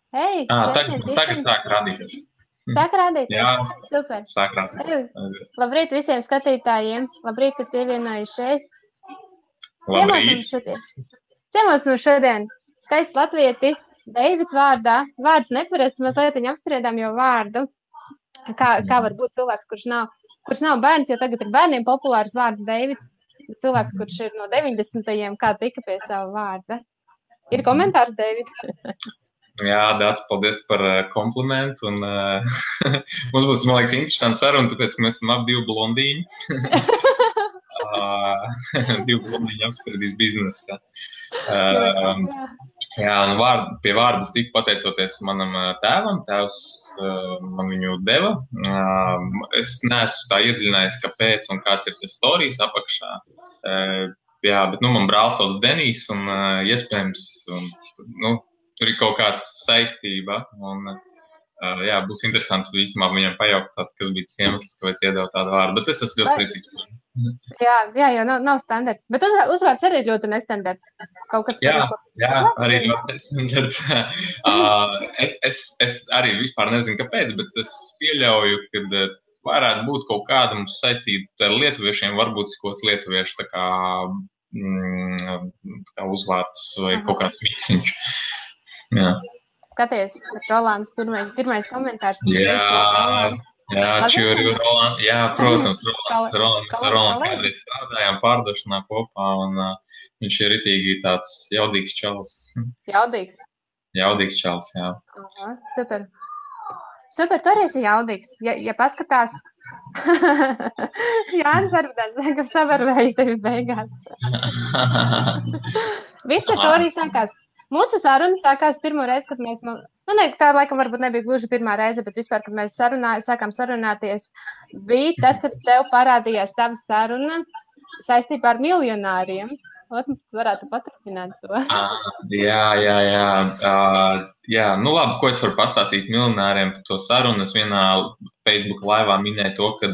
Hei, sveiciens Tagad visiem! sāk rādīties. Sāk rādīties. Jā, Super. sāk rādīties. Hei, labrīt visiem skatītājiem. Labrīt, kas pievienojušies. Ciemos Labrīt. mums šodien. Ciemos mums šodien skaists latvietis, Deivids vārdā. Vārds neparasts, mazliet viņa apspriedām jau vārdu. Kā var būt cilvēks, kurš nav bērns, jo tagad ir bērniem populārs vārds Deivids. Cilvēks, kurš ir no 90. kā tika pie sava vārda. Ir komentārs, Deivid? Jā, Dāc, paldies par komplimentu. Un, mums būs, man liekas, interesanti saruna, tāpēc, ka mēs esam ap divi blondīņi. Divi blondīņi apspriedīs biznesu. Jā, un pie vārdas tika pateicoties manam tēvam. Tēvs man viņu deva. Es neesmu tā iedziļinājies, kāpēc un kāds ir tas storijas apakšā. Jā, bet man brālis sauc Denijs un iespējams, tur ir kaut kāda saistība. Un, jā, būs interesanti īstenībā viņam pajautāt, kas bija tas iemesls, kāpēc iedeva tādu vārdu. Bet es esmu ļoti priecīgs. Jā, jo nav standarts. Bet uzvārds arī ļoti nestandarts. Kaut kas jā, arī ļoti nestandarts. Es arī vispār nezinu, kāpēc, bet es pieļauju, ka varētu būt kaut kāda mums saistība ar lietuviešiem, varbūt kaut kāds lietuviešu tā kā uzvārds vai kaut kāds miksiņš. Jā. Skaties, Rolands pirmais komentārs. Jā, čuri Rolands. Jā, protams, Rolands kādreiz strādājām pārdošanā kopā, un viņš ir ritīgi tāds jaudīgs čalis. Jaudīgs? Jaudīgs čalis, jā. Aha, super. Super, tu arī esi jaudīgs. Ja paskatās, Jānis Arbudens, ka savarvēja tevi beigās. Viss ar to arī sākās. Mūsu saruna sākās pirmo reizi, kad mēs, tā laikam varbūt nebija gluži pirmā reize, bet vispār, kad mēs sākām sarunāties, bija tad, kad tev parādījās tava saruna saistībā ar miljonāriem. Varētu paturpināt to. Jā, nu labi, ko es varu pastāstīt miljonāriem par to sarunu. Es vienā Facebook laivā minēju to, ka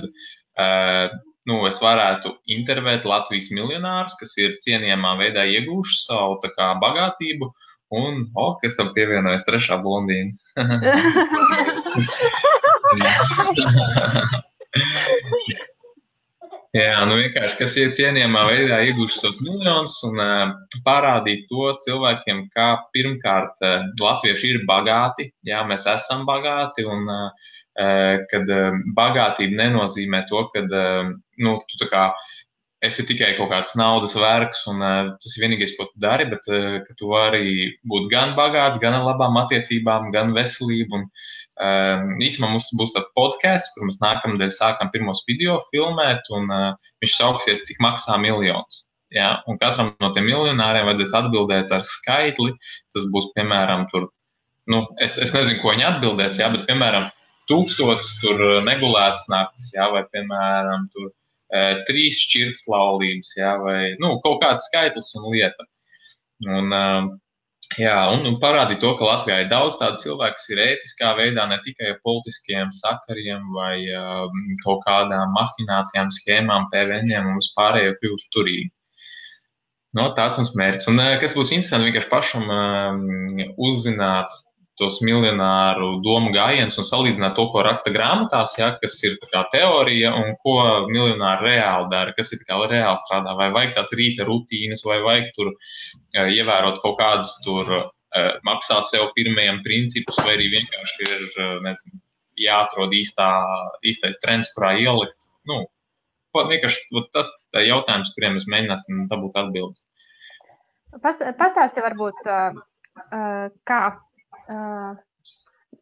es varētu intervēt Latvijas miljonārus, kas ir cienījamā veidā iegūši savu tā kā bagātību, un, kas tam pievienojas trešā blondīna. Jā, vienkārši, kas ir cienījamā veidā iegūši savus miljonus un parādīt to cilvēkiem, kā pirmkārt latvieši ir bagāti, jā, mēs esam bagāti, un kad bagātība nenozīmē to, ka tu tā kā esi tikai kaut kāds naudas vergs, un tas ir vienīgais, ko tu dari, bet ka tu vari būt gan bagāts, gan ar labām attiecībām, gan veselību, un īsumā mums būs tāds podcasts, kur mēs nākamnedēļ sākam pirmos video filmēt, un viņš sauksies, cik maksā miljons. Ja? Un katram no tiem miljonāriem vajadzēs atbildēt ar skaitli. Tas būs, piemēram, tur, es nezinu, ko viņi atbildēs, ja? Bet, piemēram, 1000 tur negulētas naktis, ja? Vai, piemēram, tur 3 šķirtas laulības, ja? Vai, kaut kāds skaitlis un lieta. Un parādīt to, ka Latvijā ir daudz tādu cilvēku, kas ir ētiskā veidā, ne tikai ar politiskiem sakariem vai kaut kādām mahinācijām, schēmām, PVN-iem un vispārējo kļūst turīgi. Tāds mums mērķis. Un kas būs interesanti, vienkārši pašam uzzināt tos miljonāru domu gājienus un salīdzināt to, ko raksta grāmatās, ja, kas ir tā kā teorija un ko miljonāri reāli dara, kas ir tā kā reāli strādā, vai vajag tās rīta rutīnas, vai vajag tur ievērot kaut kādus tur maksā sev pirmajiem principus, vai arī vienkārši ir, nezinu, jāatrod īstais trends, kurā ielikt. Vienkārši tas jautājums, kuriem mēs mēģināsim dabūt atbildes. Pastāsti varbūt, kā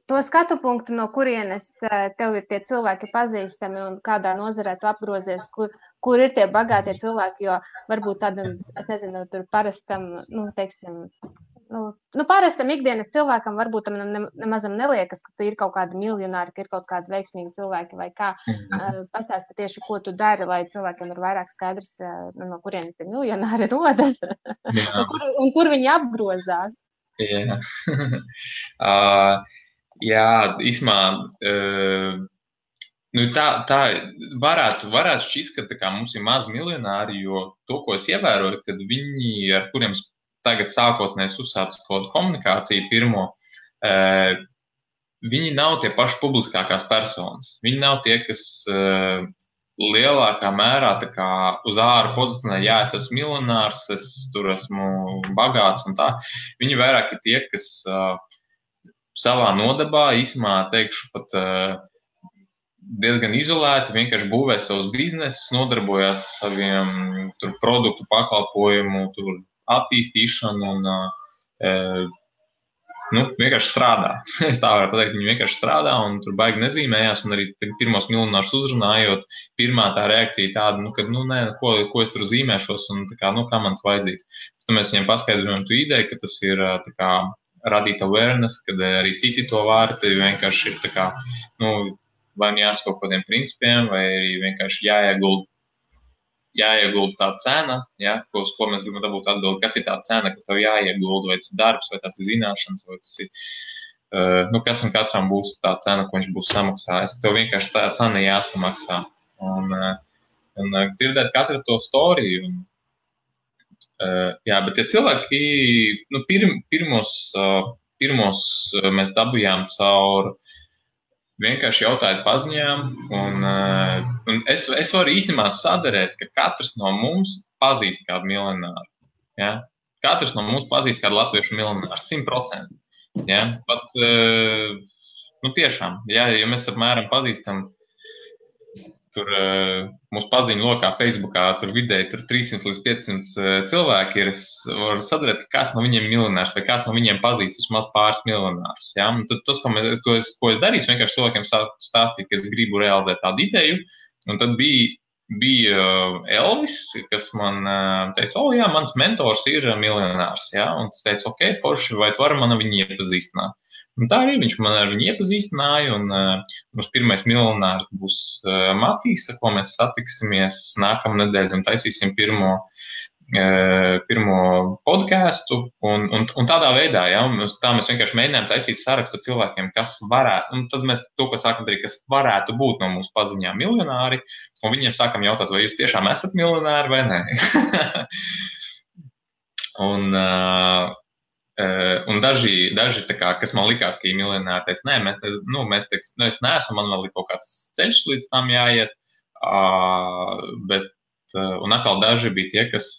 to skatu punktu, no kurienes tev ir tie cilvēki pazīstami un kādā nozarē tu apgrozies, kur ir tie bagātie cilvēki, jo varbūt tādam, es nezinu, tur parastam, parastam ikdienas cilvēkam varbūt tam nemazam neliekas, ka tu ir kaut kādi miljonāri, ka ir kaut kādi veiksmīgi cilvēki vai kā. Pastāsti tieši, ko tu dari, lai cilvēkiem ir vairāk skaidrs, no kurienes tie miljonāri rodas un kur viņi apgrozās. Jā, īsumā, tā varētu šķist, ka tā kā mums ir maz miljonāri, jo to, ko es ievēroju, kad viņi, ar kuriem tagad sākotnēs uzsācu kaut komunikāciju pirmo, viņi nav tie paši publiskākās personas. Viņi nav tie, kas lielākā mērā tā kā uz āru pozicionē, jā, es esmu miljonārs, es tur esmu bagāts un tā. Viņi vairāk ir tie, kas savā nodabā, īsumā teikšu pat diezgan izolēti, vienkārši būvē savus biznesus, nodarbojās ar saviem tur produktu pakalpojumu, tur attīstīšanu un vienkārši strādā. Es tā varu pateikt, viņi vienkārši strādā un tur baigi nezīmējās, un arī pirmos miljonārus uzrunājot, pirmā tā reakcija tāda, ko es tur zīmēšos, un tā kā, kā man's vajadzīgs. Tad mēs viņiem paskaidrojam tu ideju, ka tas ir tā kā radīt awareness, kad arī citi to var, tad vienkārši ir tā kā, vai jāsako kaut kādiem principiem, vai arī vienkārši jāiegulda tā cena, ja, uz ko mēs gribam dabūt atbildi, kas ir tā cena, kas tev jāiegulda, vai tas ir darbs, vai tas ir zināšanas, vai tas ir, kas un katram būs tā cena, ko viņš būs samaksājis. Tev vienkārši tā cena jāsamaksā. Un dzirdēt katru to storiju. Bet tie cilvēki, pirmos mēs dabujām caur vienkārši jautājot paziņām, un es varu īstenībā sadarēt, ka katrs no mums pazīst kādu miljonāru. Ja? Katrs no mums pazīst kādu latviešu miljonāru, 100%. Ja? Pat, tiešām, ja mēs apmēram pazīstam, tur mūsu paziņu lokā Facebookā, tur vidēji 300 līdz 500 cilvēki ir, es varu sadarēt, ka kāds no viņiem miljonārs vai kāds no viņiem pazīst vismaz pāris miljonārus. Ja? Un tad tas, ko es darīšu, vienkārši cilvēkiem stāstīt, ka es gribu realizēt tādu ideju, un tad bija Elvis, kas man teica, jā, mans mentors ir miljonārs, ja? Un es teicu, ok, forši, vai tu vari man viņu iepazīstināt? Un tā arī viņš man ar viņu iepazīstināja, un mums pirmais miljonārs būs Matīs, ar ko mēs satiksimies nākamā nedēļa un taisīsim pirmo podcastu, un tādā veidā, ja, tā mēs vienkārši mēģinājām taisīt sarakstu cilvēkiem, kas varētu, un tad mēs to, ko sākam darīt, kas varētu būt no mūsu paziņām miljonāri, un viņiem sākam jautāt, vai jūs tiešām esat miljonāri vai nē. Un daži tā kā, kas man likās, ka ir miljonāri, teica, nē, es neesmu, man vēl ir kaut kāds ceļš līdz tam jāiet, un atkal daži bija tie, kas,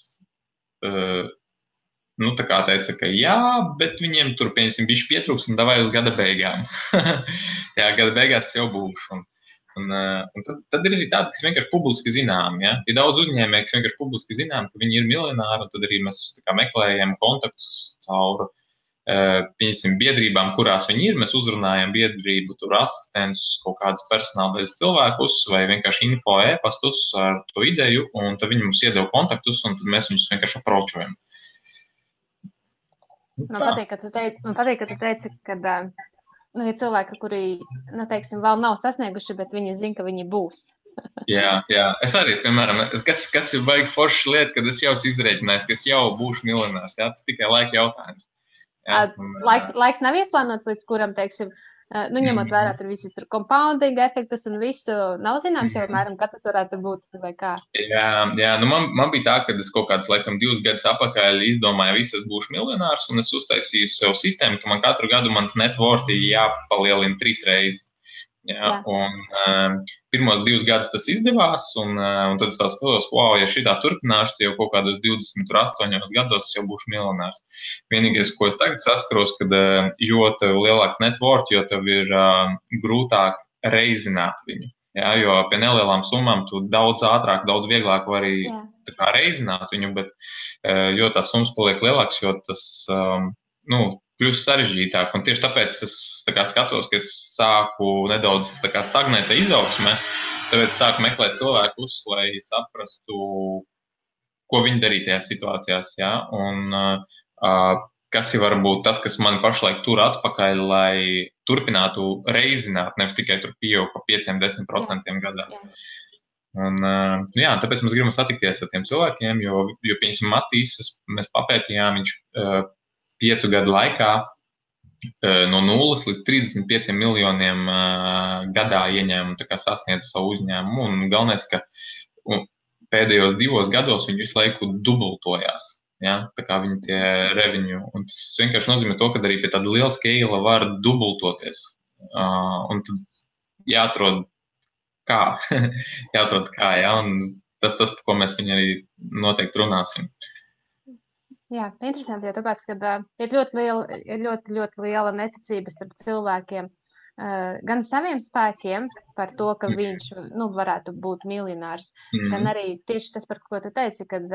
tā kā teica, ka jā, bet viņiem tur, pieņemsim, bišķi pietrūks un davai uz gada beigām. Jā, gada beigās jau būšu. Un tad ir arī tādi, kas vienkārši publiski zinām, ja? Ir daudz uzņēmēji, kas vienkārši publiski zinām, ka viņi ir miljonāri, un tad arī mēs tā kā meklējam kontaktus caur, pieņemsim, biedrībām, kurās viņi ir. Mēs uzrunājam biedrību, tur asistentus, kaut kādus personālais cilvēkus, vai vienkārši info e-pastus ar to ideju, un tad viņi mums iedeva kontaktus, un tad mēs viņus vienkārši apročojam. Man patīk, ka tu teici, ka ir cilvēki, kuri, teiksim, vēl nav sasnieguši, bet viņi zina, ka viņi būs. Jā. Es arī, piemēram, kas ir baigi forša lieta, kad es jau esmu izrēķinājis, ka es jau būšu miljonārs. Jā, tas tikai laika jautājums. Jā, laiks nav ieplānots, līdz kuram, teiksim, ņemot vērā tur visus tur compounding efektus un visu, nav zināms jau apmēram, kad tas varētu būt vai kā. Jā, man bija tā, ka es kaut kādus, laikam, 2 gadus atpakaļ izdomāju, es būšu miljonārs, un es uztaisīju sev sistēmu, ka man katru gadu mans net worth jāpalielina 3 reizes. Jā. Un pirmos 2 gadus tas izdevās, un tad es tā skatos, ja šitā turpināšu, tad jau kaut kādos 28 gados es jau būšu miljonārs. Vienīgais, ko es tagad saskaros, kad jo tev lielāks net worth, jo tev ir grūtāk reizināt viņu. Jā, jo pie nelielām summām tu daudz ātrāk, daudz vieglāk vari tā kā reizināt viņu, bet jo tās summas paliek lielāks, jo tas, kļūst sarežģītāk. Un tieši tāpēc es tā kā skatos, ka es sāku nedaudz tā kā stagnēt izaugsmē, tāpēc es sāku meklēt cilvēkus, lai saprastu, ko viņi darīja tajās situācijās. Ja? Un kas ir varbūt tas, kas man pašlaik tur atpakaļ, lai turpinātu reizināt, nevis tikai tur pieaug pa 5-10% gadā. Un, tāpēc mēs gribam satikties ar tiem cilvēkiem, jo pieņemsim Matīs, mēs papētījām, viņš 5 gadu laikā no 0 līdz 35 miljoniem gadā ieņēmumu, tā kā sasniedz savu uzņēmumu. Un galvenais, ka pēdējos 2 gados viņi visu laiku dubultojās. ja, tā kā viņi tie revenue, un tas vienkārši nozīmē to, ka arī pie tāda liela scale var dubultoties, un tad jāatrod kā, ja, un tas, par ko mēs viņu arī noteikti runāsim. Jā, interesanti, jo tāpēc, ka ir ļoti liela neticība starp cilvēkiem, gan saviem spēkiem par to, ka viņš varētu būt miljonārs, gan arī tieši tas, par ko tu teici, kad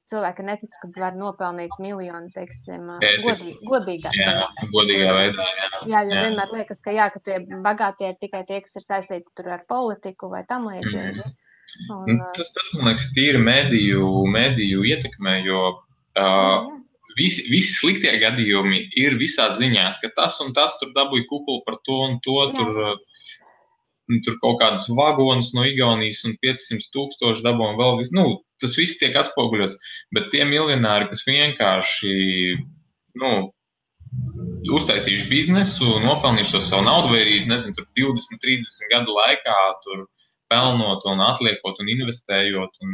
cilvēki netic, ka var nopelnīt miljonu, teiksim, godīgā veidā. Jā, jo vienmēr liekas, ka tie bagātie ir tikai tie, kas ir saistīti tur ar politiku vai tam līdzīgi. Tas, man liekas, ir tīri mediju ietekmē, jo visi sliktie gadījumi ir visās ziņās, ka tas un tas tur dabūja kukulu par to un to, tur kaut kādus vagonus no Igaunijas un 500,000 dabūja vēl visu. Tas viss tiek atspoguļots, bet tie miljonāri, kas vienkārši, uztaisījuši biznesu, nopelnījuši to savu naudu, vai arī, nezinu, tur 20, 30 gadu laikā tur pelnot un atliekot un investējot un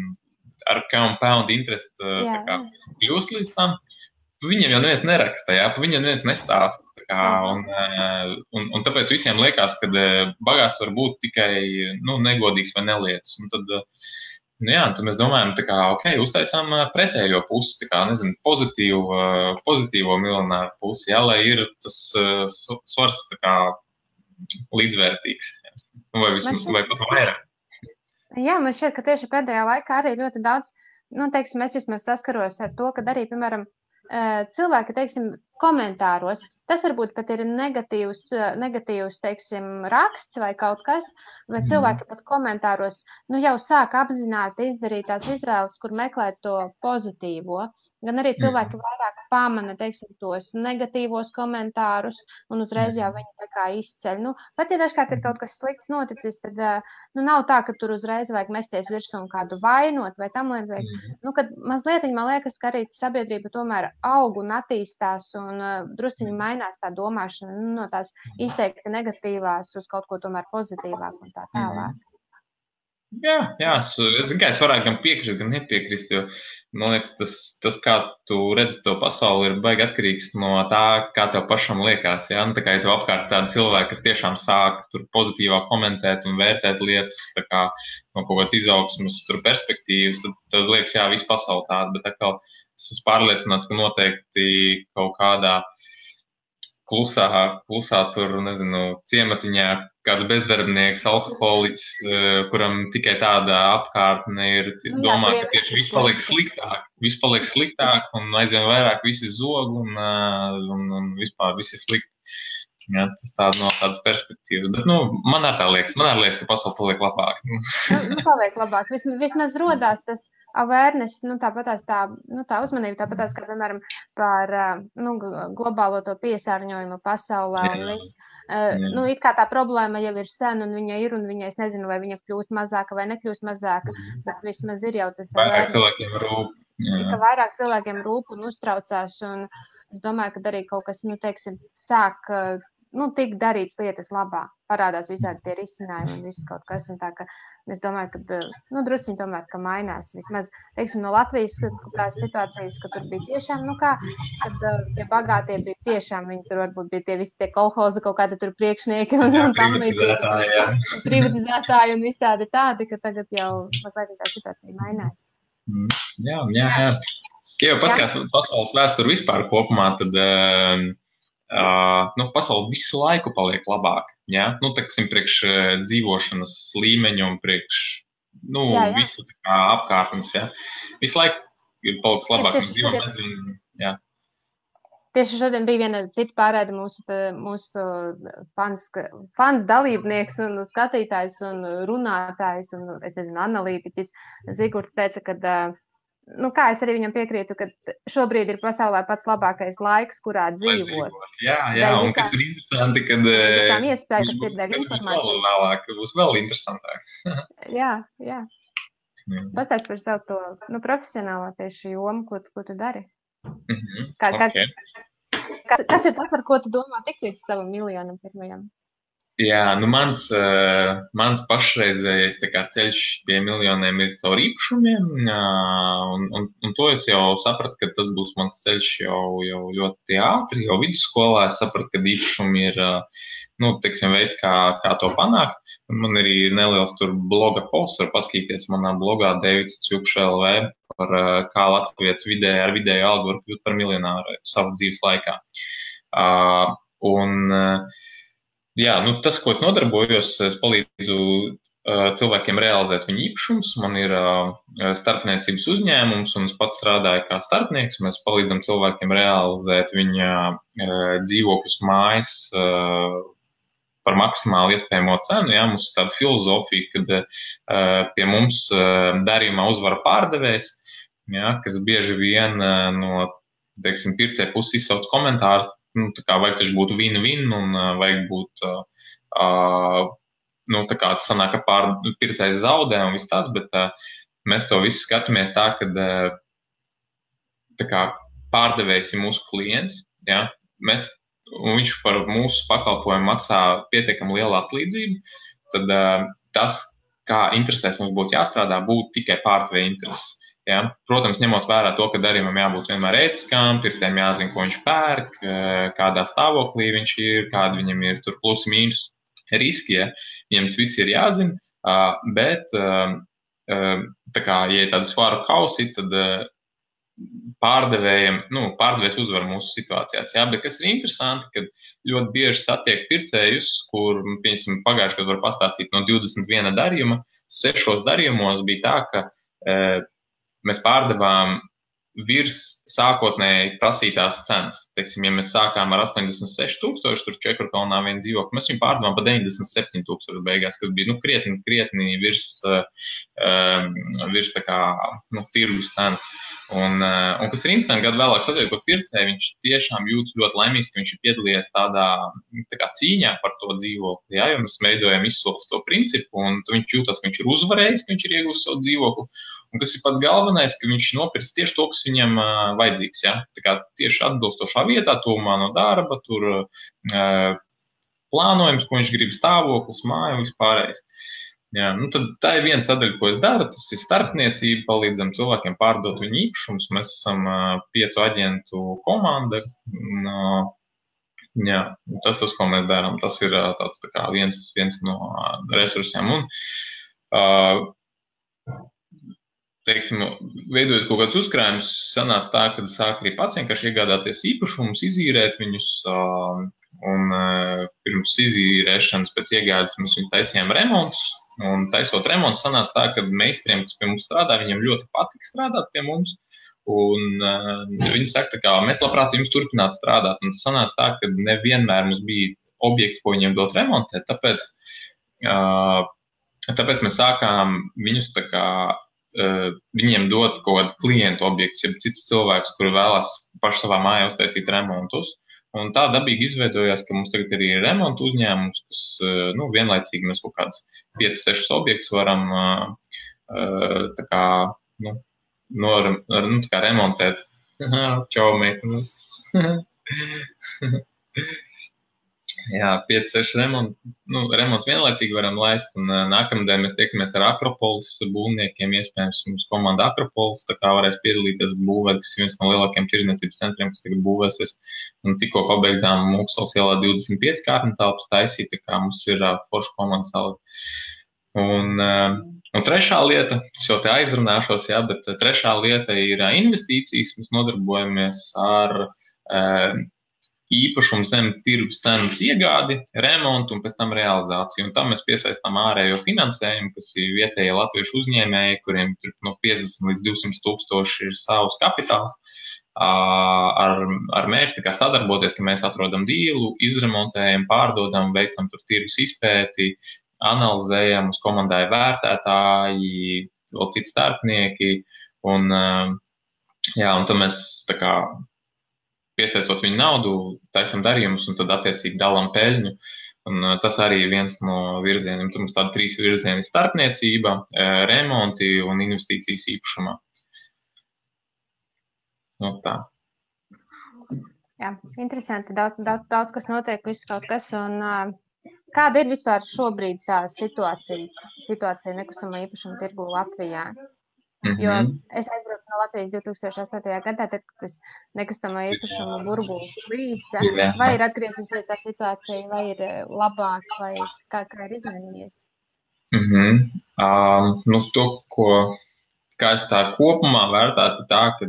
ar compound interest kļūst līdz tam, viņiem jau neviens neraksta, viņiem neviens nestāsta. Un tāpēc visiem liekas, ka bagāts var būt tikai negodīgs vai nelietis. Un tad, tad mēs domājam, uztaisām pretējo pusi, nezinu, pozitīvo miljonāru pusi, lai ir tas svars līdzvērtīgs. Vai pat vairāk. Jā, man šķiet, ka tieši pēdējā laikā arī ļoti daudz, teiksim, es vismaz saskaros ar to, ka arī, piemēram, cilvēki, teiksim, komentāros, tas varbūt pat ir negatīvs, teiksim, raksts vai kaut kas, vai cilvēki pat komentāros, jau sāk apzināti izdarīt tās izvēles, kur meklēt to pozitīvo, gan arī cilvēki vairāk pamana, teiksim, tos negatīvos komentārus, un uzreiz jau viņi tā kā izceļ. Pat ja dažkārt ir kaut kas slikts noticis, tad nav tā, ka tur uzreiz vajag mesties virsū un kādu vainot vai tam līdzīgi. Kad mazliet, man liekas, ka arī sabiedrība tomēr aug un attīstās un drusciņi mainās tā domāšana no tās izteikti negatīvās uz kaut ko tomēr pozitīvāk un tā tālāk. Jā, es varētu gan piekrist, gan nepiekrist, jo, man liekas, tas kā tu redzi to pasauli, ir baigi atkarīgs no tā, kā tev pašam liekas, ja? Tā kā ja tev apkārt tādi cilvēki, kas tiešām sāk tur pozitīvāk komentēt un vērtēt lietas, tā kā no kaut kāds izaugsmas tur perspektīvas, tad liekas, jā, visu pasauli tāda, bet atkal es esmu pārliecināts, ka noteikti kaut kādā klusā tur, nezinu, ciematiņā kāds bezdarbnieks, alkoholiķis, kuram tikai tāda apkārtne ir, domā, ka tieši viss paliek sliktāk un aizvien vairāk visi zog un vispār visi slikti. Jā, tas no tādas perspektīvas. Bet, man arī liekas, ka pasaule paliek labāk. Paliek labāk. Vismaz rodās tas awareness, tāpatās tā uzmanība, tāpatās, kā, piemēram, par globālo to piesārņojumu pasaulē un viss. It kā tā problēma jau ir sen un viņa ir, un viņa, es nezinu, vai viņa kļūst mazāka vai nekļūst mazāka, bet vismaz ir jau tas vairāk cilvēkiem rūp. Ka vairāk cilvēkiem rūp un uztraucās, un es domāju, ka arī kaut kas, teiksim, sāk tik darīts lietas labā, parādās visādi tie risinājumi un viss kaut kas, un tā, ka es domāju, ka, drusciņi tomēr, ka mainās vismaz, teiksim, no Latvijas tās situācijas, ka tur bija tiešām, kad tie bagātie bija tiešām, viņi tur varbūt bija tie visi tie kolhozi, kaut kādi tur priekšnieki un tam līdzīgi, privatizētāji un visādi tādi, ka tagad jau mazliet tā situācija mainās. Jā. Ja jau paskatās pasaules vēsturi vispār kopumā, tad pasaule visu laiku paliek labāk. Ja? Teiksim, priekš dzīvošanas līmeņa un priekš visu apkārtnes. Ja? Visu laiku ir paliks labāk. Tieši šodien bija viena cita pārēde mūsu fans dalībnieks un skatītājs un runātājs un, es nezinu, analītiķis Zigurds teica, ka, kā es arī viņam piekrītu, ka šobrīd ir pasaulē pats labākais laiks, kurā dzīvot. Jā, un kas ir interesanti, kad visām iespēja, kas ir dēļ informācija. Būs vēl interesantāk. Jā. Pastāst par savu to profesionālo tieši jomu, ko tu dari. Kas ir tas, ar ko tu domā tik līdz savam miljonam pirmajam? Jā, nu mans pašreizējais tā kā ceļš pie miljoniem ir caur īpašumiem, un to es jau sapratu, ka tas būs mans ceļš jau ļoti ātri, jau vidusskolā es sapratu, ka īpašumi ir, nu, teiksim, veids, kā to panākt. Man arī ir neliels tur bloga posts, var paskatīties manā blogā Deivids Cjukš LV par kā Latvijas ar vidēju algu var kļūt par miljonāru savas dzīves laikā. Jā, nu, tas, ko es nodarbojos, es palīdzu cilvēkiem realizēt viņu īpašumus. Man ir starpniecības uzņēmums, un es pats strādāju kā starpnieks. Mēs palīdzam cilvēkiem realizēt viņa dzīvokļus mājas par maksimāli iespējamo cenu. Jā, mums ir tāda filozofija, kad pie mums darījumā uzvara pārdevējs, jā, kas bieži vien no, teiksim, pircēja puses izsauc komentārus. Nu, tā kā vajag taču būt win-win un vajag būt, nu, tā kā tas sanāk, ka pircējs zaudē un viss tas, bet mēs to visu skatāmies tā, ka tā kā pārdevējs ir mūsu klients, ja, un viņš par mūsu pakalpojumu maksā pietiekami lielu atlīdzību, tad tas, kā interesēs mums būtu jāstrādā, būtu tikai pārdevēja intereses. Ja? Protams, ņemot vērā to, ka darījumam jābūt vienmēr ētiskām, pircējiem jāzina, ko viņš pērk, kādā stāvoklī viņš ir, kādi viņam ir tur plusi mīnus riski, ja? Viņam tas viss ir jāzina, bet tā kā, ja ir tāda svaru kausi, tad pārdevējs uzvar mūsu situācijās, ja? Bet kas ir interesanti, kad ļoti bieži satiek pircējus, kur, piemēram, pagājuši, kad var pastāstīt no 21 darījuma, 6 darījumos bija tā, ka mēs pārdevām virs sākotnēji prasītās cenas. Teiksim, ja mēs sākām ar 86,000, tur Čekurkalnā vienu dzīvokli, mēs viņu pārdevām par 97,000 beigās, kas bija, nu, krietni virs tā kā, nu, tirgus cenas. Un kas ir interesanti, gadu vēlāk satiekot pircēju, viņš tiešām jūtas ļoti laimīgs, ka viņš ir piedalījies tādā tā kā cīņā par to dzīvokli, ja, jo mēs veidojam izsoles to principu, un viņš jūtas, ka viņš ir uzvarējis, ka viņš ir iegūst savu dzīvokli. Un kas ir pats galvenais, ka viņš nopirks tieši to, kas viņam vajadzīgs. Ja? Tā kā tieši atbilstošā vietā, tuvumā no darba, tur plānojums, ko viņš grib, stāvoklis, māja un vispārējais. Ja, nu tad tā ir viena sadaļa, ko es daru. Tas ir starpniecība, palīdzam cilvēkiem pārdot viņu īpašumus. Mēs esam 5 aģentu komanda. Jā, tas, ko mēs darām, tas ir tāds tā kā viens no resursiem. Un, teiksim, veidojot kaut kādus uzkrājumus, sanāca tā, ka sāk arī pats vienkārši iegādāties īpašumus, izīrēt viņus, un pirms izīrēšanas pēc iegādes mēs viņu taisījām remontus, un taisot remontus sanāca tā, ka meistariem, kas pie mums strādā, viņiem ļoti patīk strādāt pie mums, un viņi saka, tā kā mēs labprāt jums turpināt strādāt, un tas sanāca tā, ka nevienmēr mums bija objekti, ko viņiem dot remontēt, tāpēc mēs sākām viņus tā kā viņiem dot kaut kādu klientu objektu, ja cits cilvēks, kuri vēlas paši savā mājā uztaisīt remontus. Un tā dabīgi izveidojās, ka mums tagad arī ir remontu uzņēmums, kas, nu, vienlaicīgi mēs kaut kāds 5-6 objektus varam tā kā, nu, tā kā remontēt. Čau, meitenes. Jā, 5-6 remonts vienlaicīgi varam laist, un nākamdien mēs tiekamies ar Akropolis būvniekiem, iespējams mums komanda Akropolis, tā kā varēs piedalīties būvēt, kas ir viens no lielākiem tirdzniecības centriem, kas tagad būvēsies, un tikko pabeidzām Mūksels ielā 25 kārtni telpas taisīt, tā kā mums ir forša komanda salda. Un trešā lieta, es jau te aizrunāšos, jā, bet trešā lieta ir investīcijas, mēs nodarbojamies ar īpašumu zem tirgus cenas iegādi, remontu un pēc tam realizāciju. Un tam mēs piesaistām ārējo finansējumu, kas ir vietējie latviešu uzņēmēji, kuriem no 50 līdz 200 tūkstoši ir savs kapitāls, ar mērķi kā sadarboties, ka mēs atrodam dīlu, izremontējam, pārdodam, veicam tur tirgus izpēti, analizējam, uz komandai vērtētāji, vēl citi starpnieki, un tad mēs tā kā piesaistot viņu naudu, taisam darījumus un tad attiecīgi dalām peļņu. Un tas arī ir viens no virzieniem. Tur mums tādi 3 virzieni - starpniecība, remonti un investīcijas īpašumā. Nu, tā. Jā, interesanti. Daudz kas notiek, viss kaut kas. Un kāda ir vispār šobrīd tā situācija nekustamā īpašuma tirgu Latvijā? Jo es aizbraucu no Latvijas 2008. gadā, tad, kad tas nekustamā īpašuma burbulis plīsa, vai ir atgriezusies tā situācija, vai ir labāk, vai kā ir izmainījies? To, kā es tā kopumā vērtētu, tā, ka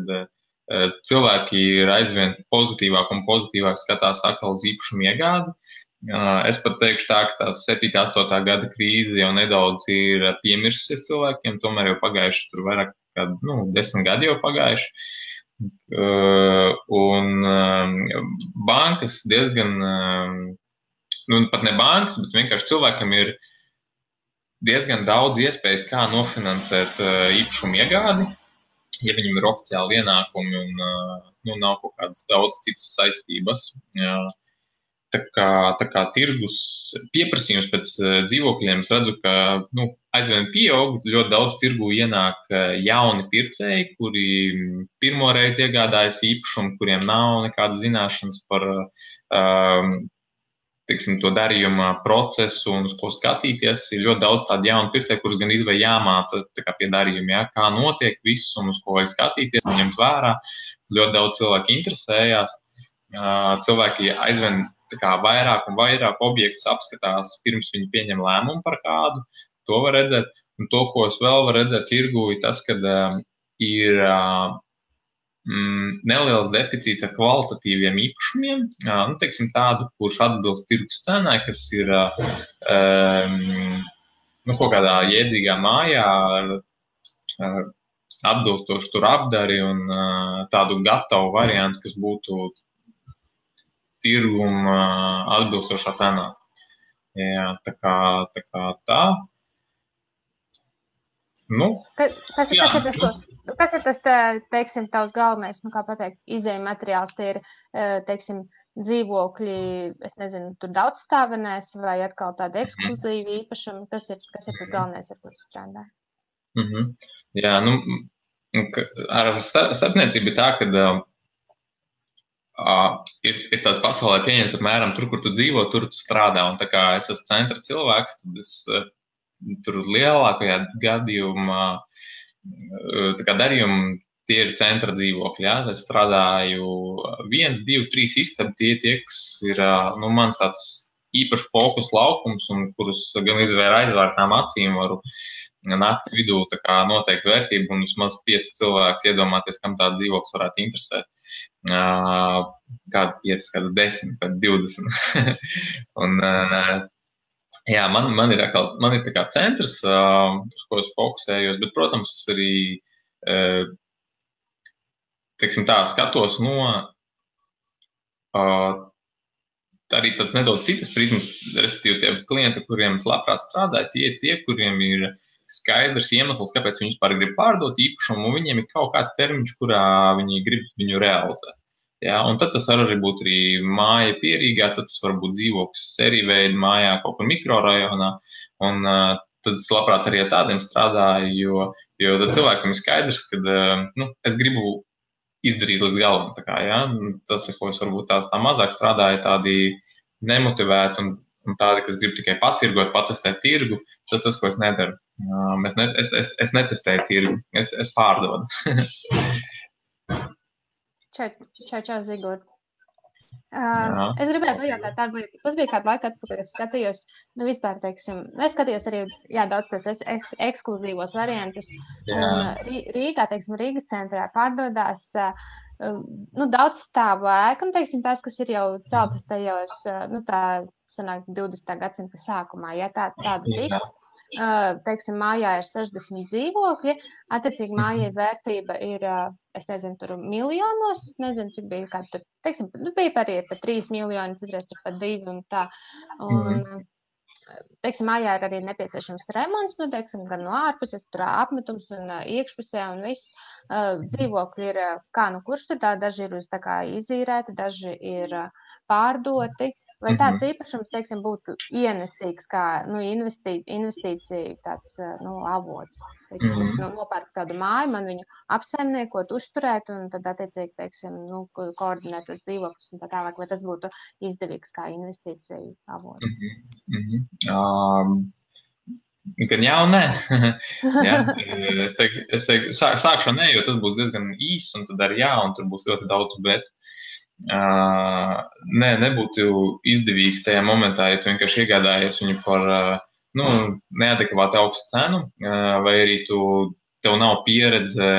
cilvēki ir aizvien pozitīvāk un pozitīvāk skatās atkal uz īpašumu iegādi. Es pat teikšu tā, ka tās 7. 8. gada krīze jau nedaudz ir piemirsusies cilvēkiem, tomēr jau pagājuši tur vairāk kā 10 gadi jau pagājuši. Un bankas diezgan, pat ne bankas, bet vienkārši cilvēkam ir diezgan daudz iespējas, kā nofinansēt īpašumu iegādi, ja viņam ir oficiāli ienākumi un nav kaut kādas daudz citas saistības. Tā kā tirgus pieprasījums pēc dzīvokļiem, es redzu, ka aizvien pieaug, ļoti daudz tirgu ienāk jauni pircēji, kuri pirmoreiz iegādājas īpašumu, kuriem nav nekādas zināšanas par to darījuma procesu un uz ko skatīties. Ir ļoti daudz tādu jaunu pircēju, kurus gan izvēl jāmāca pie darījuma, kā notiek viss un uz ko vajag skatīties un ņemt vērā. Ļoti daudz cilvēku interesējās. Cilvēki aizvien vairāk un vairāk objektus apskatās, pirms viņi pieņem lēmumu par kādu. To var redzēt. Un to, ko es vēl varu redzēt tirgu, ir tas, ka ir neliels deficīts ar kvalitatīviem īpašumiem. Tādu, kurš atbilst tirgus cenai, kas ir kaut kādā jēdzīgā mājā ar atbilstošu tur apdari un tādu gatavu variantu, kas būtu tirguma atbilstošā cenā. Jā, tā kā tā. Kas ir tas, teiksim, tavs galvenais, kā pateikt, izējuma materiāls? Tie ir, teiksim, dzīvokļi, es nezinu, tur daudzstāvenēs vai atkal tādi ekskluzīvi īpašumi? Kas ir tas galvenais, ar kuru strādā? Jā, ar starpniecību ir tā, ka ir tāds pasaulē pieņems apmēram tur, kur tu dzīvo, tur tu strādā. Un tā kā es esmu centra cilvēks, tad es tur lielākajā gadījumā darījumu tie ir centra dzīvokļi. Jā. Es strādāju 1, 2, 3 istabi, tie, kas ir mans tāds īpaši fokus laukums, un kurus gan izvēr aizvērtām acīm varu nakts vidū noteikt vērtību, un vismaz 5 cilvēkus iedomāties, kam tāda dzīvoklis varētu interesēt. Kādu 5, kāds 10 vai 20. Un, jā, man ir tā kā centrs, uz ko es fokusējos, bet, protams, arī, skatos no arī tāds nedaudz citas prizmas, respektīvi tie klienti, kuriem es labprāt strādāju, tie, kuriem ir skaidrs iemesls, kāpēc viņi vispār grib pārdot īpašumu, un viņiem ir kaut kāds termiņš, kurā viņi grib viņu realizēt. Jā, un tad tas var arī būt arī māja Pierīgā, tad tas var būt dzīvoklis sēriju veidu mājā kaut kur mikrorajonā, un tad es labprāt arī ar tādiem strādāju, jo tad cilvēkam ir skaidrs, ka es gribu izdarīt līdz galam. Jā, tas, ko es varbūt tā mazāk strādāju, tādi nemotivēti un tādi, kas grib tikai patirgot, patestēt tirgu, tas, ko es nedaru. Es netestēju tirgu, es pārdodu. Čau, Zigort. Es gribēju pajautāt tādu lietu. Tas bija kādu laiku atpakaļ, es skatījos, vispār, teiksim, es skatījos arī, daudz tos ekskluzīvos variantus. Un Rīgā, teiksim, Rīgas centrā pārdodās daudz stāvu ēku, un, teiksim, tās, kas ir jau celtas tajos, tā sanāk 20. gadsimta sākumā, ja tāda tika. Teiksim, mājā ir 60 dzīvokļi, attiecīgi mājai vērtība ir, es nezinu, tur miljonos, nezinu, cik bija kāda tur, teiksim, bija arī pat 3 miljoni, citreiz tur pat 2 un tā. Un, teiksim, mājā ir arī nepieciešams remonts, teiksim, gan no ārpuses, tur apmetums un iekšpusē un viss. Dzīvokļi ir, kurš tur tā, daži ir uz tā kā izīrēti, daži ir pārdoti. vai tāds īpašums, teiksim, būtu ienesīgs kā investīcija tāds avots. Teiksim, es nopērku kādu māju, man viņu apsaimniekot, uzturēt un tad attiecīgi, teiksim, koordinēt tos dzīvokļus un tā tālāk, vai tas būtu izdevīgs kā investīcija avots. Gan jā un nē. Es teiktu, sākšu nē, jo tas būs diezgan īss, un tad arī jā, un tur būs ļoti daudz, bet nebūtu izdevīgs tajā momentā, ja tu vienkārši iegādājies viņu par neadekvāti augstu cenu, vai arī tev nav pieredze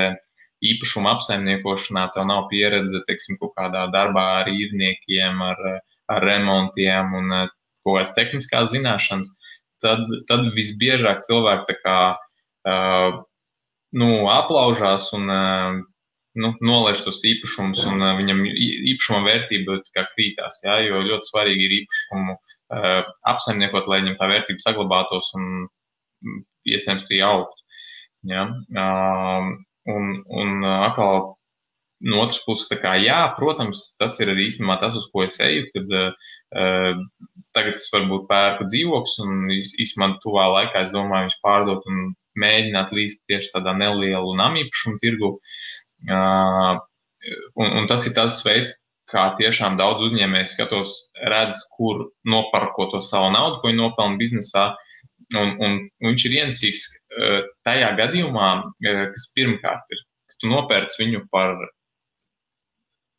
īpašuma apsaimniekošanā, tev nav pieredze, teiksim, kaut kādā darbā ar īrniekiem, ar remontiem un kaut kādas tehniskās zināšanas. Tad visbiežāk cilvēki tā kā aplaužās un nolaiž tos īpašumus, un viņam īpašuma vērtība tā kā krītās, jā, jo ļoti svarīgi ir īpašumu apsaimniekot, lai viņam tā vērtība saglabātos un iespējams arī augtu. Jā. Un atkal no otras puses, tā kā jā, protams, tas ir arī īstenībā tas, uz ko es eju, kad tagad es varbūt pērku dzīvokļus un īstenībā tuvā laikā es domāju viņus pārdot un mēģināt līst tieši tādā nelielu namīpašumu tirgu. Un tas ir tas veids, kā tiešām daudz uzņēmēji skatos, redz, kur noparko to savu naudu, ko viņi nopelna biznesā, un viņš ir ienesīgs tajā gadījumā, kas pirmkārt ir, ka tu nopērc viņu par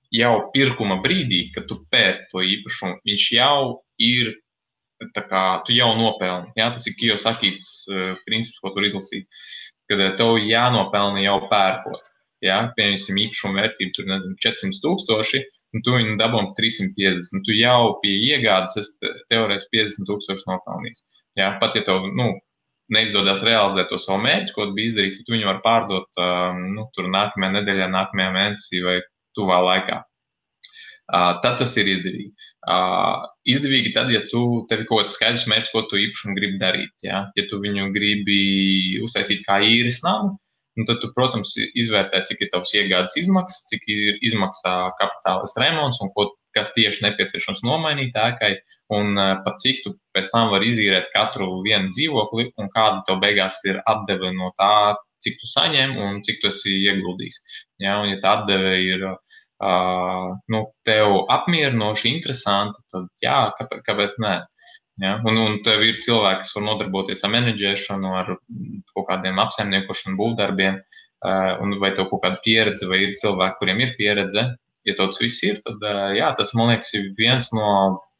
jau pirkuma brīdī, kad tu pērci to īpašumu, viņš jau ir, tā kā, tu jau nopelni. Jā, tas ir Kiyosaki's princips, ko tur izlasīt, kad tev jānopelni jau pērkot. Jā, pieņemsim īpašumu vērtību, tur, nezinu, 400,000, un tu viņu dabūji 350. Tu jau pie iegādes esi teorētiski 50,000 nopelnījis. Jā, pat ja tev, neizdodas realizēt to savu mērķi, ko tu biji izdarījis, tad tu viņu var pārdot, tur nākamajā nedēļā, nākamajā mēnesī vai tuvā laikā. Tad tas ir izdevīgi. Izdevīgi tad, ja tev ir kaut kāds skaidrs mērķis, ko tu īpašumu gribi darīt. Ja, ja tu viņu gribi uztaisīt kā īres namu, tad tu, protams, izvērtē, cik ir tavs iegādes izmaksas, cik ir izmaksā kapitālis remonts un kas tieši nepieciešams nomainīt ēkai, un pat cik tu pēc tam var izīrēt katru vienu dzīvokli un kāda tev beigās ir atdeve no tā, cik tu saņem un cik tu esi ieguldījis. Ja, un ja tā atdeve ir tev apmierinoši, interesanti, tad jā, kāpēc nē? Ja? Un tev ir cilvēki, kas var nodarboties ar menedžēšanu, ar kaut kādiem apsaimniekošanu būvdarbiem, vai tev kaut kāda pieredze, vai ir cilvēki, kuriem ir pieredze. Ja tāds viss ir, tad jā, tas, man liekas, ir viens no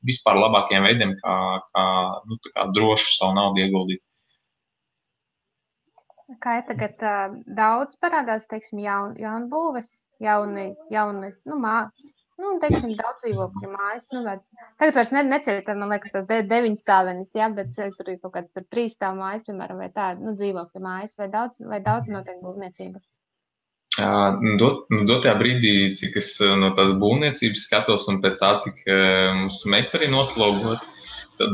vispār labākajiem veidiem, kā droši savu naudu ieguldīt. Kā tagad daudz parādās, teiksim, jaunbūves, jauni, teiksim, daudz dzīvokļu mājas, tagad vairs neciet, man liekas, tas 9 stāvenis, jā, bet tur ir kaut kāds 3 stāv mājas, piemēram, vai tā, dzīvokļu mājas, vai daudz notiek būvniecība? Dotajā brīdī, cik es no tādas būvniecības skatos un pēc tā, cik mums meistari noslogot, tad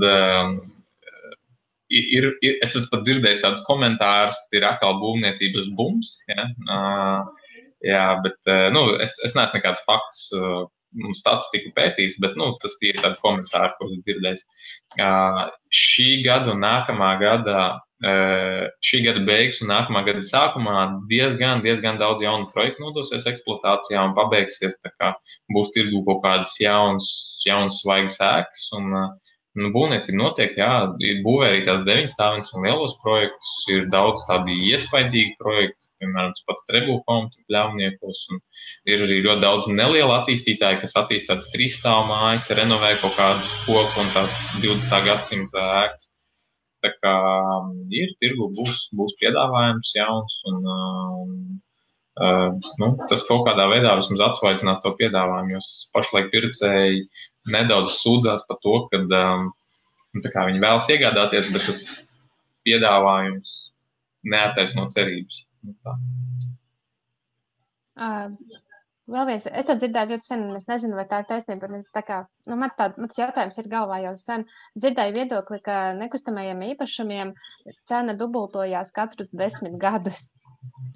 es esmu pat dzirdējis tādus komentārus, ka ir atkal būvniecības bums, jā, bet es neesmu nekādus faktus un statistiku pētījis, bet tas ir tādi komentāri, ko es dzirdējis. Šī gada un nākamā gada, šī gada beigas un nākamā gada sākumā diezgan daudz jaunu projektu nodosies eksploatācijā un pabeigsies, tā kā būs tirgu kaut kādas jaunas svaigas ēkas un būvniecība notiek, jā, ir būvē arī tās 9 stāvenes un lielos projektus, ir daudz tādi iespaidīgi projekti, piemēram, pats Trebulhome pļāvniekos, un ir arī ļoti daudz nelielu attīstītāju, kas attīst tādas 3 stāvu mājas, renovē kaut kādas koku un tās 20. gadsimta ēkas. Tā kā ir tirgu, būs piedāvājums jauns, un tas kaut kādā veidā vismaz atsvaidzinās to piedāvājumu, jo pašlaik pircēji nedaudz sūdzās par to, ka viņi vēlas iegādāties, bet tas piedāvājums neattaisno cerības. Vēl viens, es to dzirdēju ļoti sen, un es nezinu, vai tā ir taisnība, bet mans jautājums ir galvā jau sen. Dzirdēju viedokli, ka nekustamajiem īpašumiem cena dubultojās katrus 10 gadus.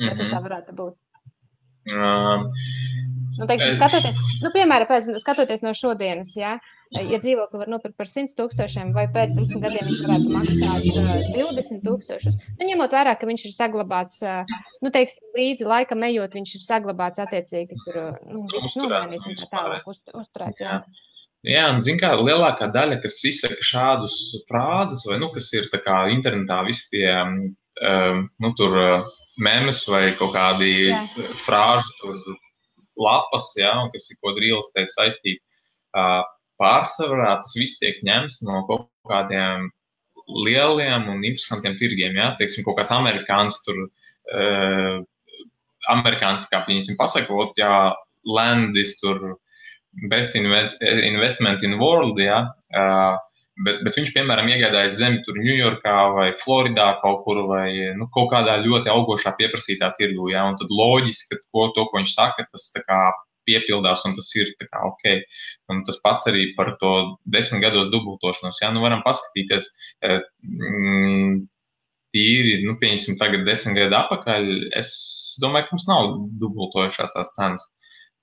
Vai tas tā varētu būt? Teiksim, piemēram, skatoties no šodienas, ja dzīvokli var nopirkt par 100,000 vai pēc 10 gadiem viņš varētu maksāt 20,000, ņemot vērā, ka viņš ir saglabāts, teiksim, līdzi laikam ejot, viņš ir saglabāts attiecīgi, tur viss nomainīts un tā tālāk uzturēts, jā. Jā, un zin kā, lielākā daļa, kas izsaka šādus frāzes, vai, kas ir tā kā internetā visi tie, tur memes vai kaut kādi frāžu tur lapas, jā, un kas ir kaut kāda real estate saistība. Pārsvarā tas viss tiek ņemts no kaut kādiem lieliem un interesantiem tirgiem, jā. Teiksim, kaut kāds amerikāns tur, amerikāns, kā viņasim pasakot, jā, land is tur best investment in world, jā. Bet viņš, piemēram, iegādājas zemi tur Ņujorkā vai Floridā kaut kur vai kaut kādā ļoti augošā pieprasītā tirgu, jā, un tad loģiski, ka to, ko viņš saka, tas tā kā piepildās un tas ir tā kā ok. Un tas pats arī par to 10 gados dubultošanos, jā, varam paskatīties tīri, pieņemsim tagad 10 gadu atpakaļ, es domāju, ka mums nav dubultojušās tās cenas.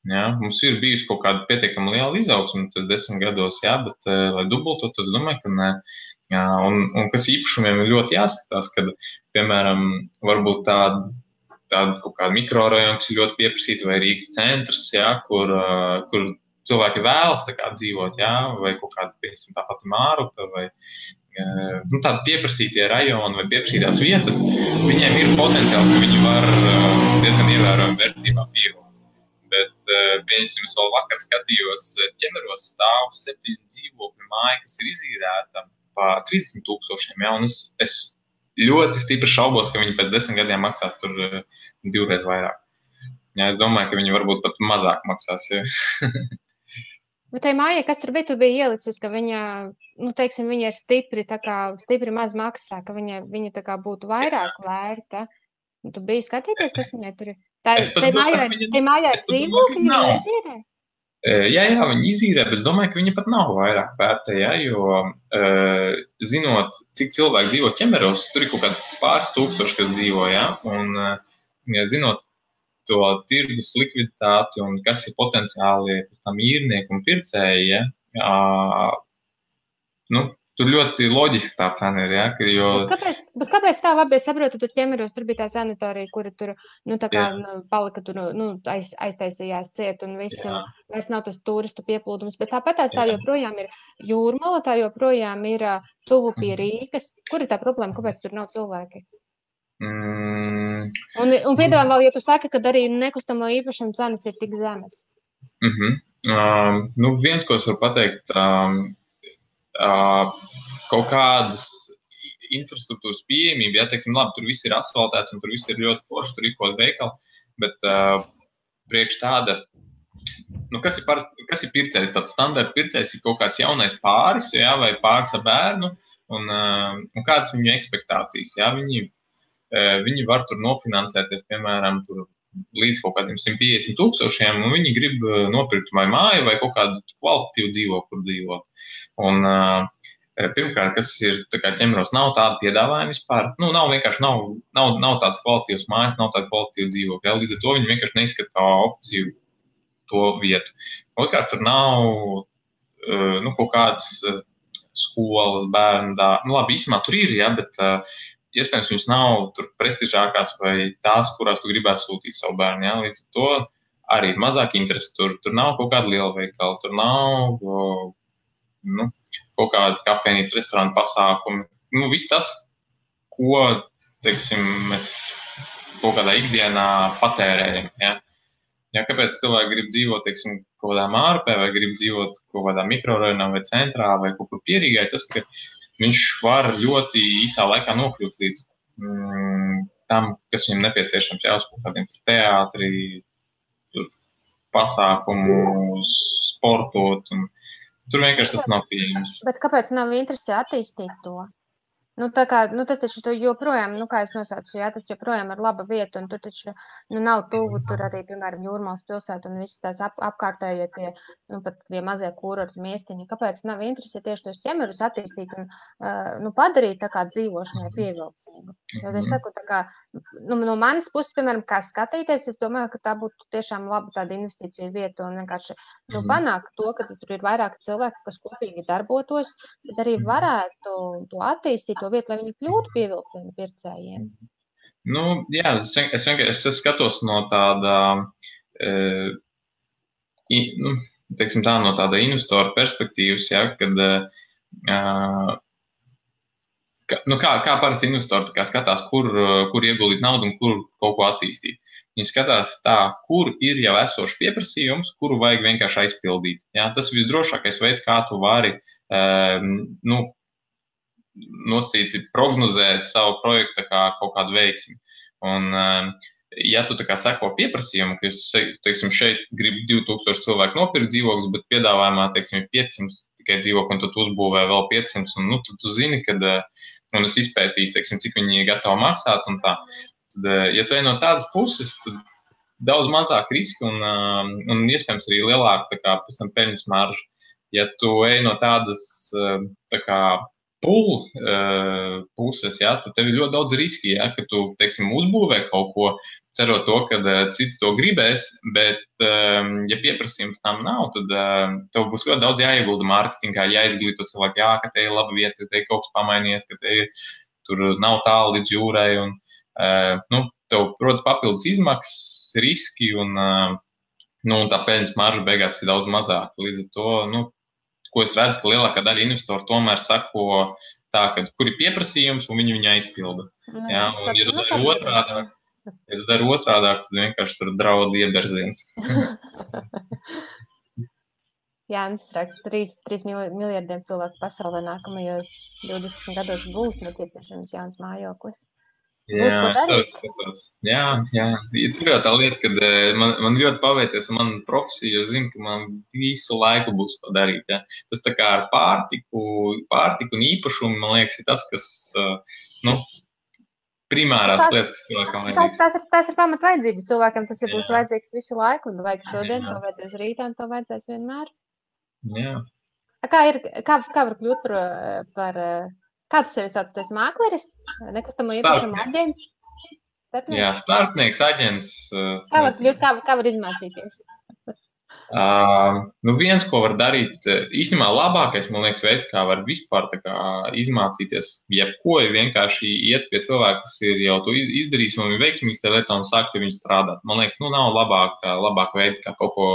Jā, mums ir bijusi kaut kāda pietiekama liela izaugsme 10 gados, jā, bet, lai dubultot, es domāju, ka ne. Jā, un kas īpašumiem ir ļoti jāskatās, kad, piemēram, varbūt tāda kaut kāda mikrorajona, kas ir ļoti pieprasīta, vai Rīgas centrs, jā, kur cilvēki vēlas tā kā dzīvot, jā, vai kaut kāda, piemēram, tā pati Mārupe, vai tādi pieprasītie rajoni vai pieprasītās vietas, viņiem ir potenciāls, ka viņi var diezgan ievērojami vērtībā pieaugt. Bet, piemēram, es vēl vakar skatījos, Ķemeros stāv 7 dzīvokļu māja, kas ir izīrēta par 30,000, jā, un es ļoti stipri šaubos, ka viņi pēc 10 gadiem maksās tur 2 reizes vairāk. Jā, es domāju, ka viņi varbūt pat mazāk maksās, jā. Bet tai mājai, kas tur bija ielicis, ka viņa, teiksim, viņa ir stipri maz maksā, ka viņa tā kā būtu vairāk vērta. Tu biji skatīties, kas viņai tur ir? Tai mājai ir dzīvokļi, viņa izīrē? Jā, viņi izīrē, bet es domāju, ka viņa pat nav vairāk vērta, jā, jo zinot, cik cilvēki dzīvo Ķemeros, tur ir kaut kādi pāris tūkstoši, kas dzīvo, jā, un zinot to tirgus likviditāti un kas ir potenciāli tam īrnieki un pircēji, jā, tur ļoti loģiski tā cena ir, jā, jo... Bet kāpēc tā labi? Es saprotu, tur Ķemeros, tur bija tā sanatorija, kura tur, palika tur, aiztaisījās ciet un viss, un vairs nav tas turistu pieplūdums, bet tāpat tā joprojām ir Jūrmala, tā joprojām ir tuvu pie Rīgas. Kur ir tā problēma? Kāpēc tur nav cilvēki? Un piedāvājam vēl, ja tu saki, ka arī nekustamo īpašumu cenas ir tik zemes. Viens, ko es varu pateikt, kaut kādas infrastruktūras pieejamība, ja, teiksim, labi, tur viss ir asfaltēts un tur viss ir ļoti forši, tur ir kaut veikali, bet priekš tāda, kas ir pircējs? Tāds standarta pircējs ir kaut kāds jaunais pāris, jā, vai pāris ar bērnu, un kādas viņu ekspektācijas, jā, viņi var tur nofinansēties, piemēram, tur līdz kaut kādiem 150,000, un viņi grib nopirkt vai māju vai kaut kādu kvalitatīvu dzīvokli, kur dzīvot. Un pirmkārt, kas ir tā kā Ķemeros, nav tāda piedāvājuma vispār. Nav vienkārši nav tāds kvalitīvs mājas, nav tāda kvalitīva dzīvokļa. Līdz ar to viņi vienkārši neizskata kā opciju to vietu. Otrkārt, tur nav kaut kādas skolas, bērnu dārzi. Labi, īsumā tur ir, jā, bet iespējams viņas nav tur prestižākās vai tās, kurās tu gribētu sūtīt savu bērnu. Jā. Līdz ar to arī ir mazāk interesi. Tur nav kaut kāda liela veikala, tur nav kaut kāda kafejnīcas, restorāna pasākumi. Viss tas, ko, teiksim, mēs kaut kādā ikdienā patērējam. Ja? Ja, kāpēc cilvēki grib dzīvot, teiksim, kaut kādā Mārupē vai grib dzīvot kaut kādā mikrorajonā vai centrā vai kaut kur pierīgai, tas, ka viņš var ļoti īsā laikā nokļūt līdz tam, kas viņam nepieciešams, jā, uz kaut kādiem teātri, pasākumu, sportot un tur vienkārši tas nav pieejams. Bet kāpēc nav interesi attīstīt to? Tas taču joprojām, kā es nosaucu, jā, tas joprojām ir laba vieta, un tur taču nav tuvu, tur arī, piemēram, Jūrmalas pilsēta un visas tās apkārtējie pat tie mazie kurorti miestiņi. Kāpēc nav interesi tieši tos Ķemerus attīstīt un padarīt tā kā dzīvošanai pievilcīgu? Jo es saku, tā kā no manas puses, piemēram, kā skatīties, es domāju, ka tā būtu tiešām laba tāda investīcija vieta un vienkārši panākt to, ka tur ir vairāk cilvēki, kas kopīgi darbotos, bet arī varētu to attīstīt, to vietu, lai viņi kļūtu pievilcīgi pircējiem. Jā, es skatos no tāda, teiksim tā, no tāda investora perspektīvas, ja, kad, kā parasti investori skatās, kur ieguldīt naudu un kur kaut ko attīstīt. Viņi skatās tā, kur ir jau esošs pieprasījums, kuru vajag vienkārši aizpildīt. Ja, tas ir visdrošākais veids, kā tu vari nosacīt, prognozēt savu projektu kā kaut kādu veiksmi. Un, ja tu seko pieprasījumu, ka es, teiksim, šeit gribu 2000 cilvēku nopirkt dzīvokļus, bet piedāvājumā, teiksim, 500 tikai dzīvokļu, un tad uzbūvē vēl 500, un tad tu zini, kad, un es izpētīju, teiksim, cik viņi ir gatavi maksāt, un tā. Tad, ja tu ej no tādas puses, tad daudz mazāk riski, un iespējams arī lielāka, pēc tam peļņas marža. Ja tu ej no tādas, puses, ja, tad tev ir ļoti daudz riski, ja, ka tu, teiksim, uzbūvē kaut ko, cerot to, ka citi to gribēs, bet, ja pieprasījums tam nav, tad tev būs ļoti daudz jāiegulda mārketingā, jāizglīto cilvēku, ka te ir laba vieta, ka te ir kaut kas pamainījies, ka te tur nav tālu līdz jūrai, un tev rodas papildus izmaksas, riski, un tā peļņas marža beigās ir daudz mazāka. Līdz ar to, ko es redzu, ka lielākā daļa investoru tomēr sako tā, ka kur ir pieprasījums, un viņi aizpilda. Ja, un ja tu dari otrādāk, tad vienkārši tur draud ieberziens. Jānis raksta, 3 miljardiem cilvēku pasaulē nākamajos 20 gados būs nepieciešams jauns mājoklis. Jā, es skatos. Jā. Tur jau tā lieta, kad man ļoti paveicies man profesija, jo zinu, ka man visu laiku būs ko darīt. Ja. Tas tā kā ar pārtiku un īpašumu, man liekas, ir tas, kas, primārās lietas, kas cilvēkam vajadzīgs. Tas ir pamat vajadzības cilvēkam, tas būs vajadzīgs visu laiku, un vajag šodien, to vajadzēs rītā, un to vajadzēs vienmēr. Jā. Kā var kļūt par kā tu sevi sauc? Tu esi mākleris? Nekustamo īpašumu aģents? Starpnieks? Jā, starpnieks, aģents. Kā var izmācīties? Viens, ko var darīt, īstenībā labākais, man liekas, veids, kā var vispār izmācīties, jebko, ir vienkārši iet pie cilvēka, kas ir jau to izdarījis un ir veiksmīgs tajā lietā un sākt pie viņu strādāt. Man liekas, nav labāk veidi, kā kaut ko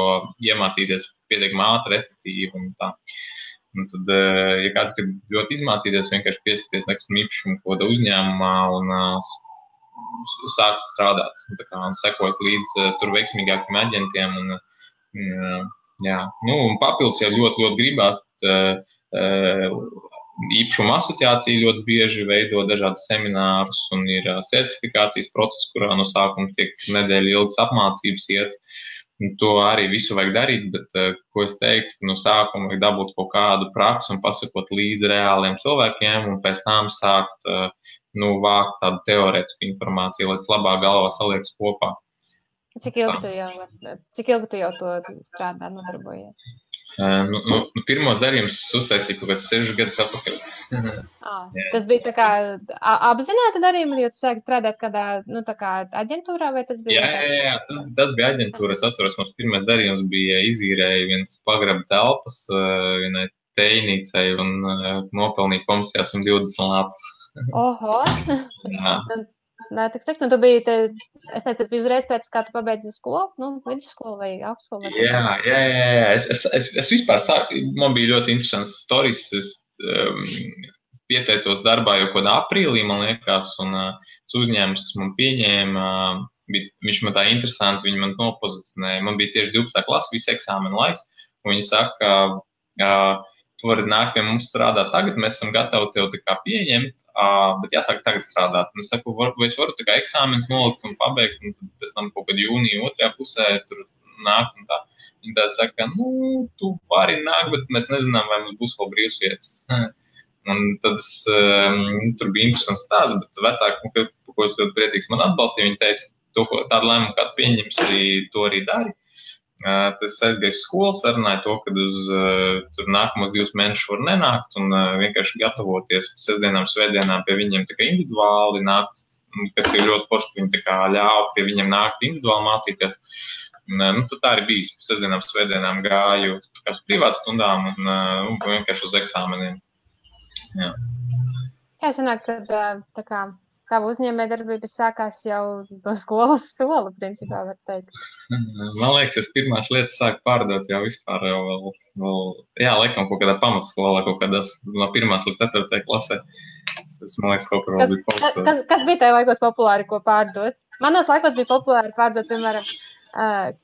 iemācīties pietiekami ātri, efektīvi un tā. Un tad, ja kāds grib ļoti izmācīties, vienkārši pieskaties nekustamā īpašuma kaut kādā uzņēmumā un sākt strādāt. Un sekot līdz tur veiksmīgākiem aģentiem. Un papildus, ja ļoti gribās, īpašuma asociācija ļoti bieži veido dažādas seminārus un ir certifikācijas process, kurā no sākuma tiek nedēļa ilgas apmācības iet. To arī visu vajag darīt, bet, ko es teiktu, no sākuma vajag dabūt kaut kādu praksi un pasakot līdzi reāliem cilvēkiem un pēc tam sākt vākt tādu teorētisku informāciju, lai tas labāk galvā saliekas kopā. Cik ilgi tu jau to strādā, nodarbojies? Pirmos darījumus uztaisīju kaut kāds 6 gadus atpakaļ. Tas bija tā kā apzināta darījuma, jo tu sāki strādāt kādā, aģentūrā, vai tas bija? Jā, tas bija aģentūra. Es atceros, mums pirmais darījums bija izīrēja viens pagraba telpas vienai teinīcai un nopelnīja komisijā 120 latus. Oho! Jā. Nē, tik slikti. Tu biji, es teicu, tas bija uzreiz pēc, kā tu pabeidzi skolu, vidusskolu vai augstskolu? Jā. Es vispār man bija ļoti interesants stories. Es pieteicos darbā jau kādā aprīlī, man liekas, un uzņēmums, kas man pieņēma, viņš man tā interesanti, viņi man nopozicionēja. Man bija tieši 12. klasa, visu eksāmenu laiks, un viņi saka, tu vari nākt pie mums strādāt tagad, mēs esam gatavi tev pieņemt, bet jāsāk tagad strādāt. Un es saku, vai es varu eksāmenus nolikt un pabeigt, un tad pēc tam kaut kad jūnija otrajā pusē tur nākt un tā. Viņi tā saka, tu vari nākt, bet mēs nezinām, vai mums būs vēl brīvs vietas. Un tad tur bija interesants stāsts, bet vecāki, ko es ļoti priecīgs man atbalstīja, viņi teica, tādu lēmumu, kādu pieņems, to arī dari. Tas aizgāju skolu, sarunāju to, ka tur nākamos 2 mēnešus var nenākt un vienkārši gatavoties sestdienām, svētdienām pie viņiem individuāli nākt kas ir ļoti forši, ka viņi tā kā ļāva pie viņiem nākt individuāli mācīties. Un, tad tā arī bijis. Sestdienām, svētdienām gāju tā kā uz privātu stundām un vienkārši uz eksāmeniem. Jā. Jā, sanāk, ka tā kā tava uzņēmējdarbība sākās jau no skolas sola, principā, var teikt. Man liekas, es pirmās lietas sāku pārdot jau vispār vēl jā, laikam kaut kādā pamatskolā, kaut kādās no 1. līdz 4. klasē. Tas, man liekas, kaut kur vēl bija paustot. Kas bija tajā laikos populāri, ko pārdot? Manos laikos bija populāri pārdot, piemēram,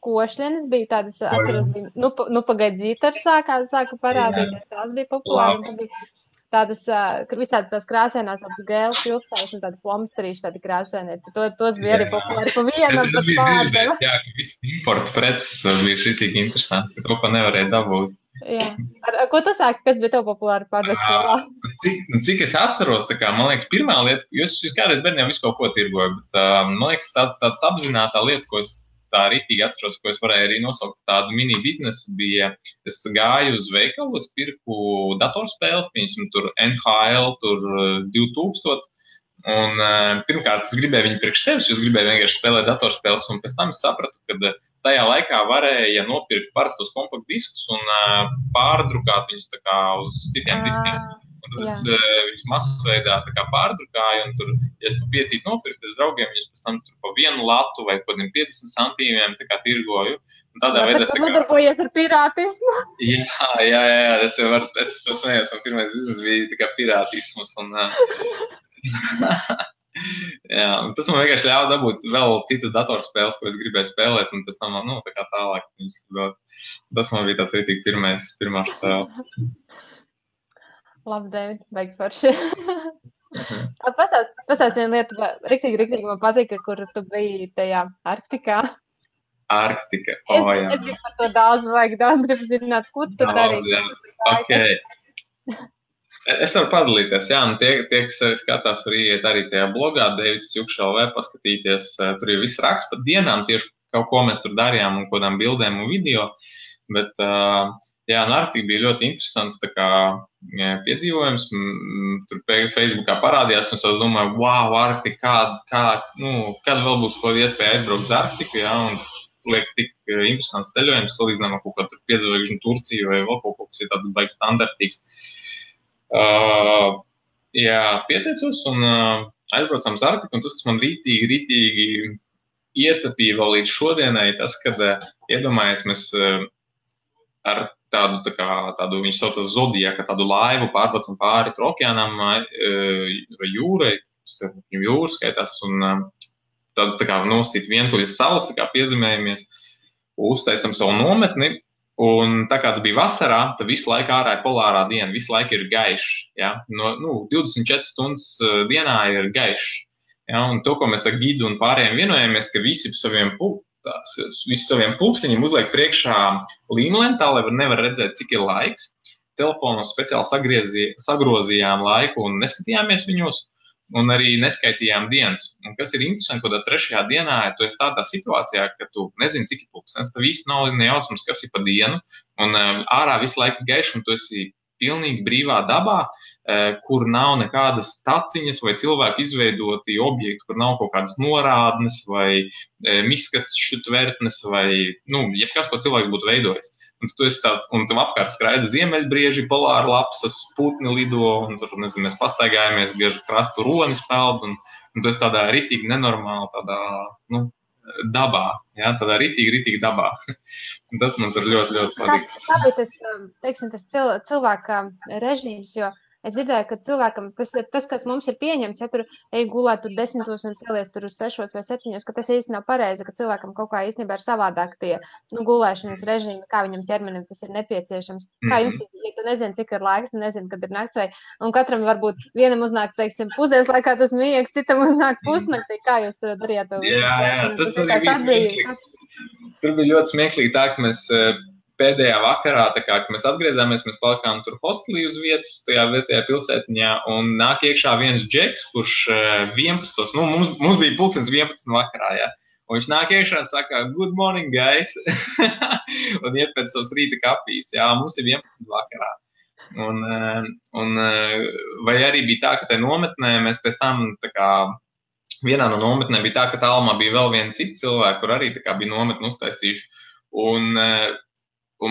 košļienes bija tādas, atceros, bija pagaidzītari sāka parādīties, tās bija populāri. Tādas, visādi tās krāsēnās, tādas gēles ilgstājas un tādi plomsterīši, tādi krāsēnie. Tos bija arī populāri pa vienam pat pārdeva. Jā, ka visi importa preces bija šitīgi interesants, ka to, ko nevarēja dabūt. Jā. Ko tu sāki, kas bija tev populāri pārdot skolā? Cik es atceros, tā kā, man liekas, pirmā lieta, jūs kādreiz bērniem visu kaut ko tirgoju, bet man liekas, tāds apzinātā lieta, ko es tā rītīgi atceros, ko es varēju arī nosaukt tādu mini biznesu, bija, es gāju uz veikalu, es pirku datorspēles, piemēram, tur NHL, tur 2000, un pirmkārt es gribēju viņu priekš sevis, jo es gribēju vienkārši spēlēt datorspēles, un pēc tam es sapratu, ka tajā laikā varēja nopirkt parastos kompaktdiskus un pārdrukāt viņus tā kā uz citiem diskiem. Un tad es viņus masveidā tā kā pārdrukāju, un tur, ja es pa 5 nopirku, es draugiem viņus pēc tam tur pa 1 latu vai kādiem 50 centīmiem tā kā tirgoju. Un tādā veidā es tā kā... Nodarbojies ar pirātismu? Jā, es to smējos, un pirmais biznes bija tā kā pirātismus, un... Jā, un tas man vienkārši ļāva dabūt vēl citas datorspēles, ko es gribēju spēlēt, un pēc tam, tā kā tālāk viņus dot. Tas man bija tāds rītīgi pirmā spēle. Labi, David, baigi forši. Pastāst vienu lietu, riktīgi man patika, kur tu biji tajā Arktikā. Arktika, jā. Es gribu par to daudz gribu zināt, ko tu darīji. Okay. Es varu padalīties, jā, un tie, kas skatās, var iet arī tajā blogā, Davids Jukšs.lv, paskatīties, tur ir viss raksts par dienām, tieši kaut ko mēs tur darījām un kādām bildēm un video, bet, jā, un Arktika bija ļoti interesants, tā kā piedzīvojums, tur Facebookā parādījās, un es domāju, wow, Arktika, kad vēl būs kaut iespēja aizbraukt uz Arktiku, jā, un tas liekas tik interesants ceļojums, salīdzinām ar kaut kādu piedzvaigžņu Turciju vai vēl kaut kas ir tāds baigi standartīgs. Jā, pieteicos un aizbraucām uz Arktiku, un tas, kas man rītīgi iecepīja vēl līdz šodienai, tas, kad iedomājies mēs ar tādu viņš saucas Zodiaka, tādu laivu pārbraucam pāri okeānam vai jūrai, jūra skaitās, un tādas tā kā nosīt vientuļas salas, tā kā piezemējamies, uztaisam savu nometni. Un tā kā tas bija vasarā, tad visu laiku ārā ir polārā diena, visu laiku ir gaišs. Ja? 24 stundas dienā ir gaišs. Ja? Un to, ko mēs ar gidu un pārējiem vienojamies, ka visi saviem pulksteņiem uzliek priekšā līmlentā, lai nevar redzēt, cik ir laiks. Telefonos speciāli sagrozījām laiku un neskatījāmies viņos. Un arī neskaitījām dienas. Un kas ir interesanti, ka 3. dienā tu esi tādā situācijā, ka tu nezini, cik ir pulkstenis, tad viss nav nejausmas, kas ir pa dienu, un ārā visu laiku gaišs, un tu esi pilnīgi brīvā dabā, kur nav nekādas taciņas vai cilvēku izveidoti objekti, kur nav kaut kādas norādnes vai miskasšu tvertnes vai, jebkas, ko cilvēks būtu veidojis. Un tu esi tāds, un tev apkārt skraida ziemeļbrieži, polāra lapsas, putni lido, un tur, nezinu, mēs pastaigājamies, gar krastu ronis peld, un tu esi tādā ritīgi nenormāli, tādā, dabā, jā, tādā ritīgi dabā. Un tas man tur ļoti, ļoti patīk. Kā bija tas, teiksim, tas cilvēka režīms, jo es dzirdēju, ka cilvēkam, tas, kas mums ir pieņemts, ja tur ej gulēt tur 10 un celies tur uz 6 vai 7, ka tas īsti nav pareizi, ka cilvēkam kaut kā īstenībā ir savādāk tie, gulēšanas režīmi, kā viņam ķermenim tas ir nepieciešams. Kā jums, ja tu nezini, cik ir laiks, nezini, kad ir nakts, vai, un katram varbūt vienam uznāk, teiksim, pusdienas laikā tas miegs, citam uznāk pusnaktī, kā jūs to darījāt? Jā, tas arī bija smieklīgs. Tur bija ļoti smieklīgi tā, ka mēs pēdējā vakarā, tā kā, kad mēs atgriezāmies, mēs palikām tur hostelī uz vietas, tajā vietējā pilsētiņā, un nāk iekšā viens džeks, kurš 11. Mums bija pulkstens 11 vakarā, jā. Un viņš nāk iekšā un saka, good morning, guys, un iet pēc savas rīta kafijas, jā, mums ir 11 vakarā. Un vai arī bija tā, ka te nometnē mēs pēc tam, tā kā, vienā no nometnēm bija tā, ka tālumā bija vēl viena cita cilvēka, kur arī tā kā bija nometni uztaisījuši. Un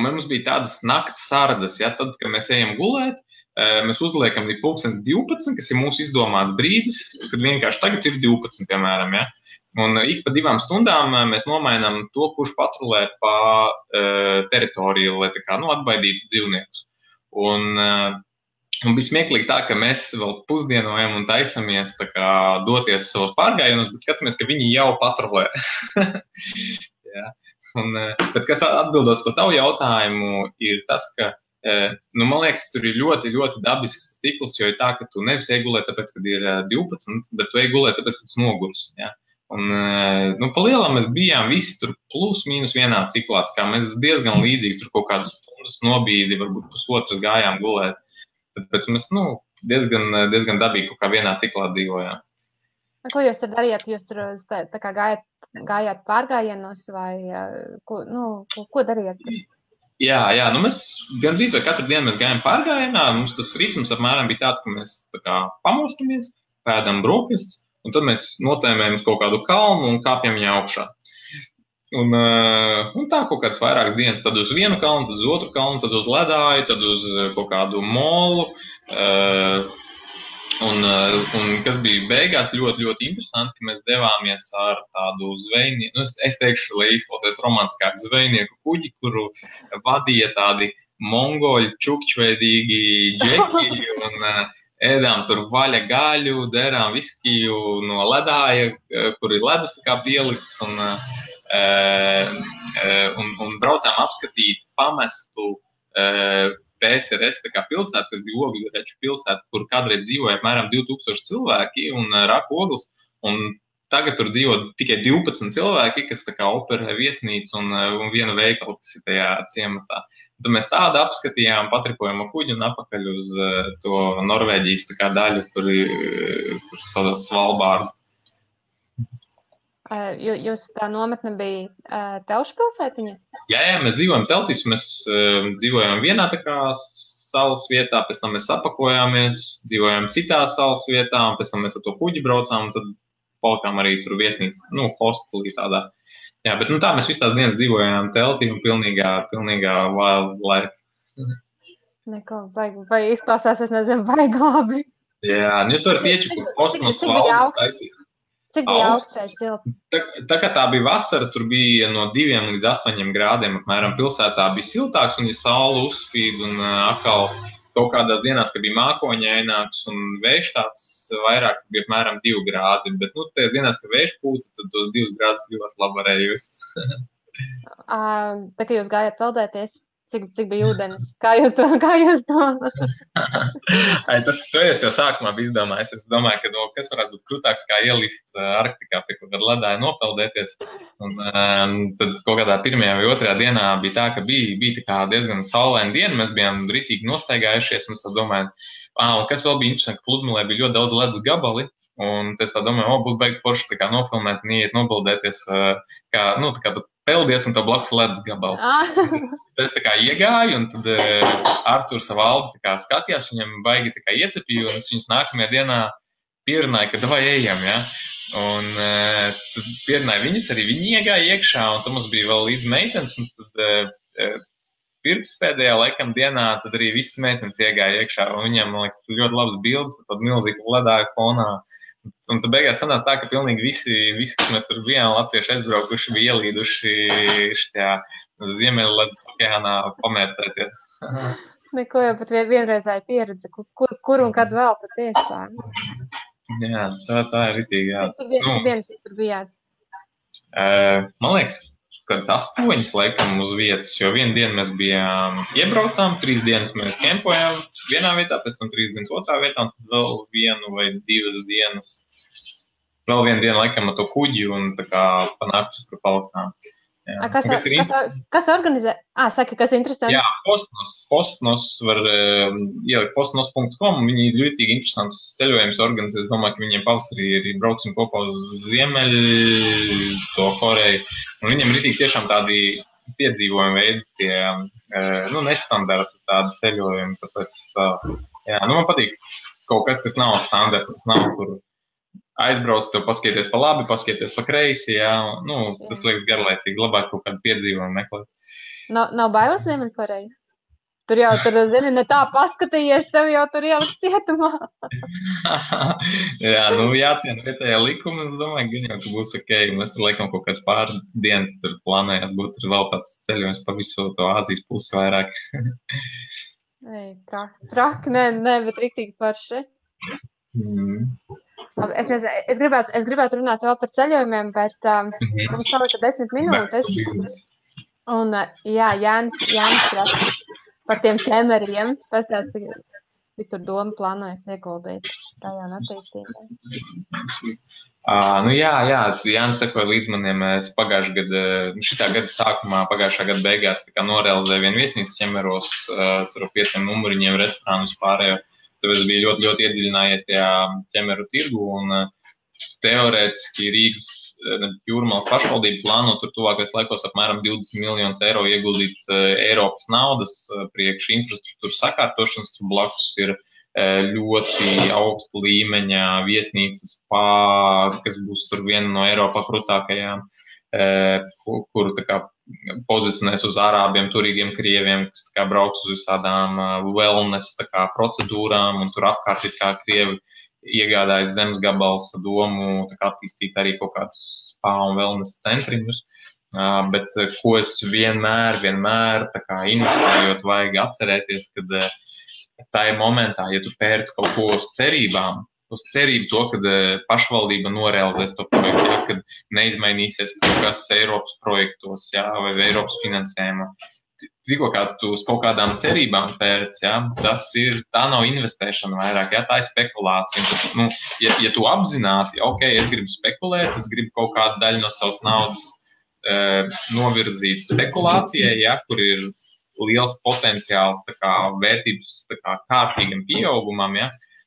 mums bija tādas nakts sardzes, ja, tad, kad mēs ejam gulēt, mēs uzliekam līdz 12, kas ir mūsu izdomāts brīdis, kad vienkārši tagad ir 12, piemēram, ja. Un ik pa 2 stundām mēs nomainām to, kurš patrulē pa teritoriju, lai tā kā, atbaidītu dzīvniekus. Un bija smieklīgi tā, ka mēs vēl pusdienojam un taisamies tā kā doties savos pārgājienos, bet skatāmies, ka viņi jau patrulē. Jā. Bet kas atbildot to tavu jautājumu, ir tas, ka, man liekas, tur ir ļoti, ļoti dabisks cikls, jo ir tā, ka tu nevis ej gulēt tāpēc, kad ir 12, bet tu ej gulēt tāpēc, ka tu nogurs. Ja? Un, pa lielam mēs bijām visi tur plus mīnus vienā ciklā, tā kā mēs diezgan līdzīgi tur kaut kādus stundas nobīdi, varbūt pusotras gājām gulēt. Tāpēc mēs, diezgan dabīgi kaut kā vienā ciklā dzīvojām. Ko jūs tad darījāt? Jūs tur tā kā gājāt pārgājienos vai ko darījāt? Jā, mēs gandrīz vai katru dienu mēs gājām pārgājienā. Mums tas ritms apmēram bija tāds, ka mēs tā kā pamostamies, pēdam brokastis, un tad mēs notēmējam uz kaut kādu kalnu un kāpjam viņā augšā. Un tā kaut kādas vairākas dienas, tad uz vienu kalnu, tad uz otru kalnu, tad uz ledāju, tad uz kaut kādu molu. Un kas bija beigās ļoti, ļoti interesanti, ka mēs devāmies ar tādu zvejnieku, es teikšu, lai izklausies romantiskāk, zvejnieku kuģi, kuru vadīja tādi mongoļu čukčveidīgi džeki un ēdām tur vaļa gaļu, dzērām viskiju no ledāja, kur ir ledus tā kā pielikts un braucām apskatīt pamestu PSRS tā kā pilsētu, kas bija Ogļureču pilsēta, kur kādreiz dzīvoja apmēram 2000 cilvēki un raka ogles, un tagad tur dzīvo tikai 12 cilvēki, kas tā kā operē viesnīcu un vienu veikalu, kas ir tajā ciematā. Tad mēs tādu apskatījām, patripojam ar kuģi un apakaļ uz to Norvēģijas tā kā daļu, kur saucās Svalbārdu. Jūs tā nometne bija telšu pilsētiņa? Jā, mēs dzīvojam teltīs, mēs dzīvojam vienā tā kā salas vietā, pēc tam mēs apakojāmies, dzīvojam citā salas vietā, un pēc tam mēs ar to kuģi braucām, un tad palikām arī tur viesnīca, hostelī tādā. Jā, bet tā mēs visu tās dienas dzīvojām teltī un pilnīgā wildlife. Neko, vai izklausās, es nezinu, baigi labi. Jā, jūs varat iečukot kosmos valdes taisīt. Cik bija augsts silts? Tā kā tā bija vasara, tur bija no 2 līdz 8 grādiem apmēram pilsētā bija siltāks, un ja saule uzspīd, un atkal kaut kādās dienās, kad bija mākoņaināks un vējš tāds vairāk, bija apmēram 2 grādi, bet tajās dienās, kad vējš pūta, tad tos 2 grādus ļoti labi varēja just. Tā kā jūs gājāt peldēties, cik bija ūdens? Kā jūs to? Tas es jau sākumā biju izdomājis. Es domāju, ka kas varētu būt krūtāks kā ielist Arktikā pie kaut kāda ledāja nopeldēties. Un tad kaut kādā 1. vai 2. dienā bija tā, ka bija tā kā diezgan saulaina diena. Mēs bijām ritīgi nostaigājušies un es tā domāju, un kas vēl bija interesanti, ka pludmalē bija ļoti daudz ledus gabali. Un es tā domāju, būtu baigi forši tā kā nofilmēt un iet nopeldēties, kā tu peldies un tā blakus ledus gabalu. Tad es tā kā iegāju, un tad Arturs Valdi tā kā skatījās, viņam baigi tā kā iecepīja, un es viņus nākamajā dienā pierunāju, ka davai ejam, ja. Un tad pierunāju viņus, arī viņi iegāja iekšā, un tad mums bija vēl līdz meitenes, un tad pirmspēdējā laikam dienā, tad arī visas meitenes iegāja iekšā, un viņiem, man liekas, ļoti labas bildes, tad milzīgi ledāja fonā. Un tad beigās sanās tā, ka pilnīgi visi, kas mēs tur bijām latvieši aizbraukuši, bija ielīduši šajā Ziemeļledus okeānā pamērcēties. Neko jau pat vienreizēja pieredze, kur un kad vēl patiešām. Jā, tā ir ritīgi, jā. Cik dienas tur bijāt? Man liekas, kāds 8 laikam uz vietas, jo vienu dienu mēs bijām iebraucām, 3 dienas mēs kempojām vienā vietā, pēc tam 3 dienas otrā vietā, un tad vēl 1 vai 2 dienas, vēl vienu dienu laikam ar to kuģi un tā kā panākt par palikām. Kas organizē? Saka, kas ir interesants? Jā, Postnos var ielikt postnos.com, viņi ir ļoti interesants ceļojums organizē. Es domāju, ka viņiem pavasarī arī brauksim kopā uz Ziemeļu, to Koreju. Un viņiem ir tiešām tādi piedzīvojumi veidi, tie nestandarti tādi ceļojumi. Tāpēc, man patīk kaut kas nav standarts, nav kur aizbrauc, tev paskaties pa labi, paskaties pa kreisi, jā, tas liekas garlaicīgi, labāk kaut kādu piedzīvojumu meklēt. Nav bailes Ziemeļkoreja? Tur, zini, ne tā paskatījies, tev jau tur ielikt cietumā. Jā, jāciena vietējā likuma, es domāju, gan jau, ka būs ok, un mēs tur laikam kaut kāds pāris dienas tur plānējās būt tur vēl tāds ceļojums pa visu to Āzijas pusi vairāk. Traki, nē, bet riktīgi parši. Es nezinu, es gribētu runāt vēl par ceļojumiem, bet mums palika 10 minūtes. Un, Jānis prasa par tiem ķemeriem. Pastāsti, cik tur doma plānojas ieguldīt tajā un attīstībā. Jānis sekoja līdz maniem. Es šitā gada sākumā, pagājušā gada beigās norealizēju vienu viesnīcu ķemeros, tur 5 numuriņiem restorānu vispārējo. Tāpēc es biju ļoti, ļoti iedziļinājies tajā ķemeru tirgu un teorētiski Rīgas Jūrmalas pašvaldība plāno tur tuvākais laikos apmēram 20 miljonus eiro ieguldīt Eiropas naudas priekš infrastruktūras sakārtošanas. Tur blakus ir ļoti augsta līmeņa viesnīcas kas būs tur viena no Eiropā krūtākajām, kuru pozicionēs uz ārābiem, turīgiem krieviem, kas brauks uz visādām wellness procedūrām, un tur apkārt ir kā krievi iegādājas zemes gabals domu attīstīt arī kaut kādus spa un wellness centriņus. Bet ko es vienmēr investējot vajag atcerēties, kad tajā momentā, ja tu pērc kaut ko uz cerībām, uz cerību to, kad pašvaldība norealizēs to projektu, kad neizmainīsies kaut kas Eiropas projektos, vai Eiropas finansējumā. Tikko kā tu uz kaut kādām cerībām pērc, tā nav investēšana vairāk, tā ir spekulācija. Tad, ja tu apzināti, ok, es gribu spekulēt, es gribu kaut kādu daļu no savas naudas novirzīt spekulācijai, kur ir liels potenciāls vērtības kārtīgam pieaugumam,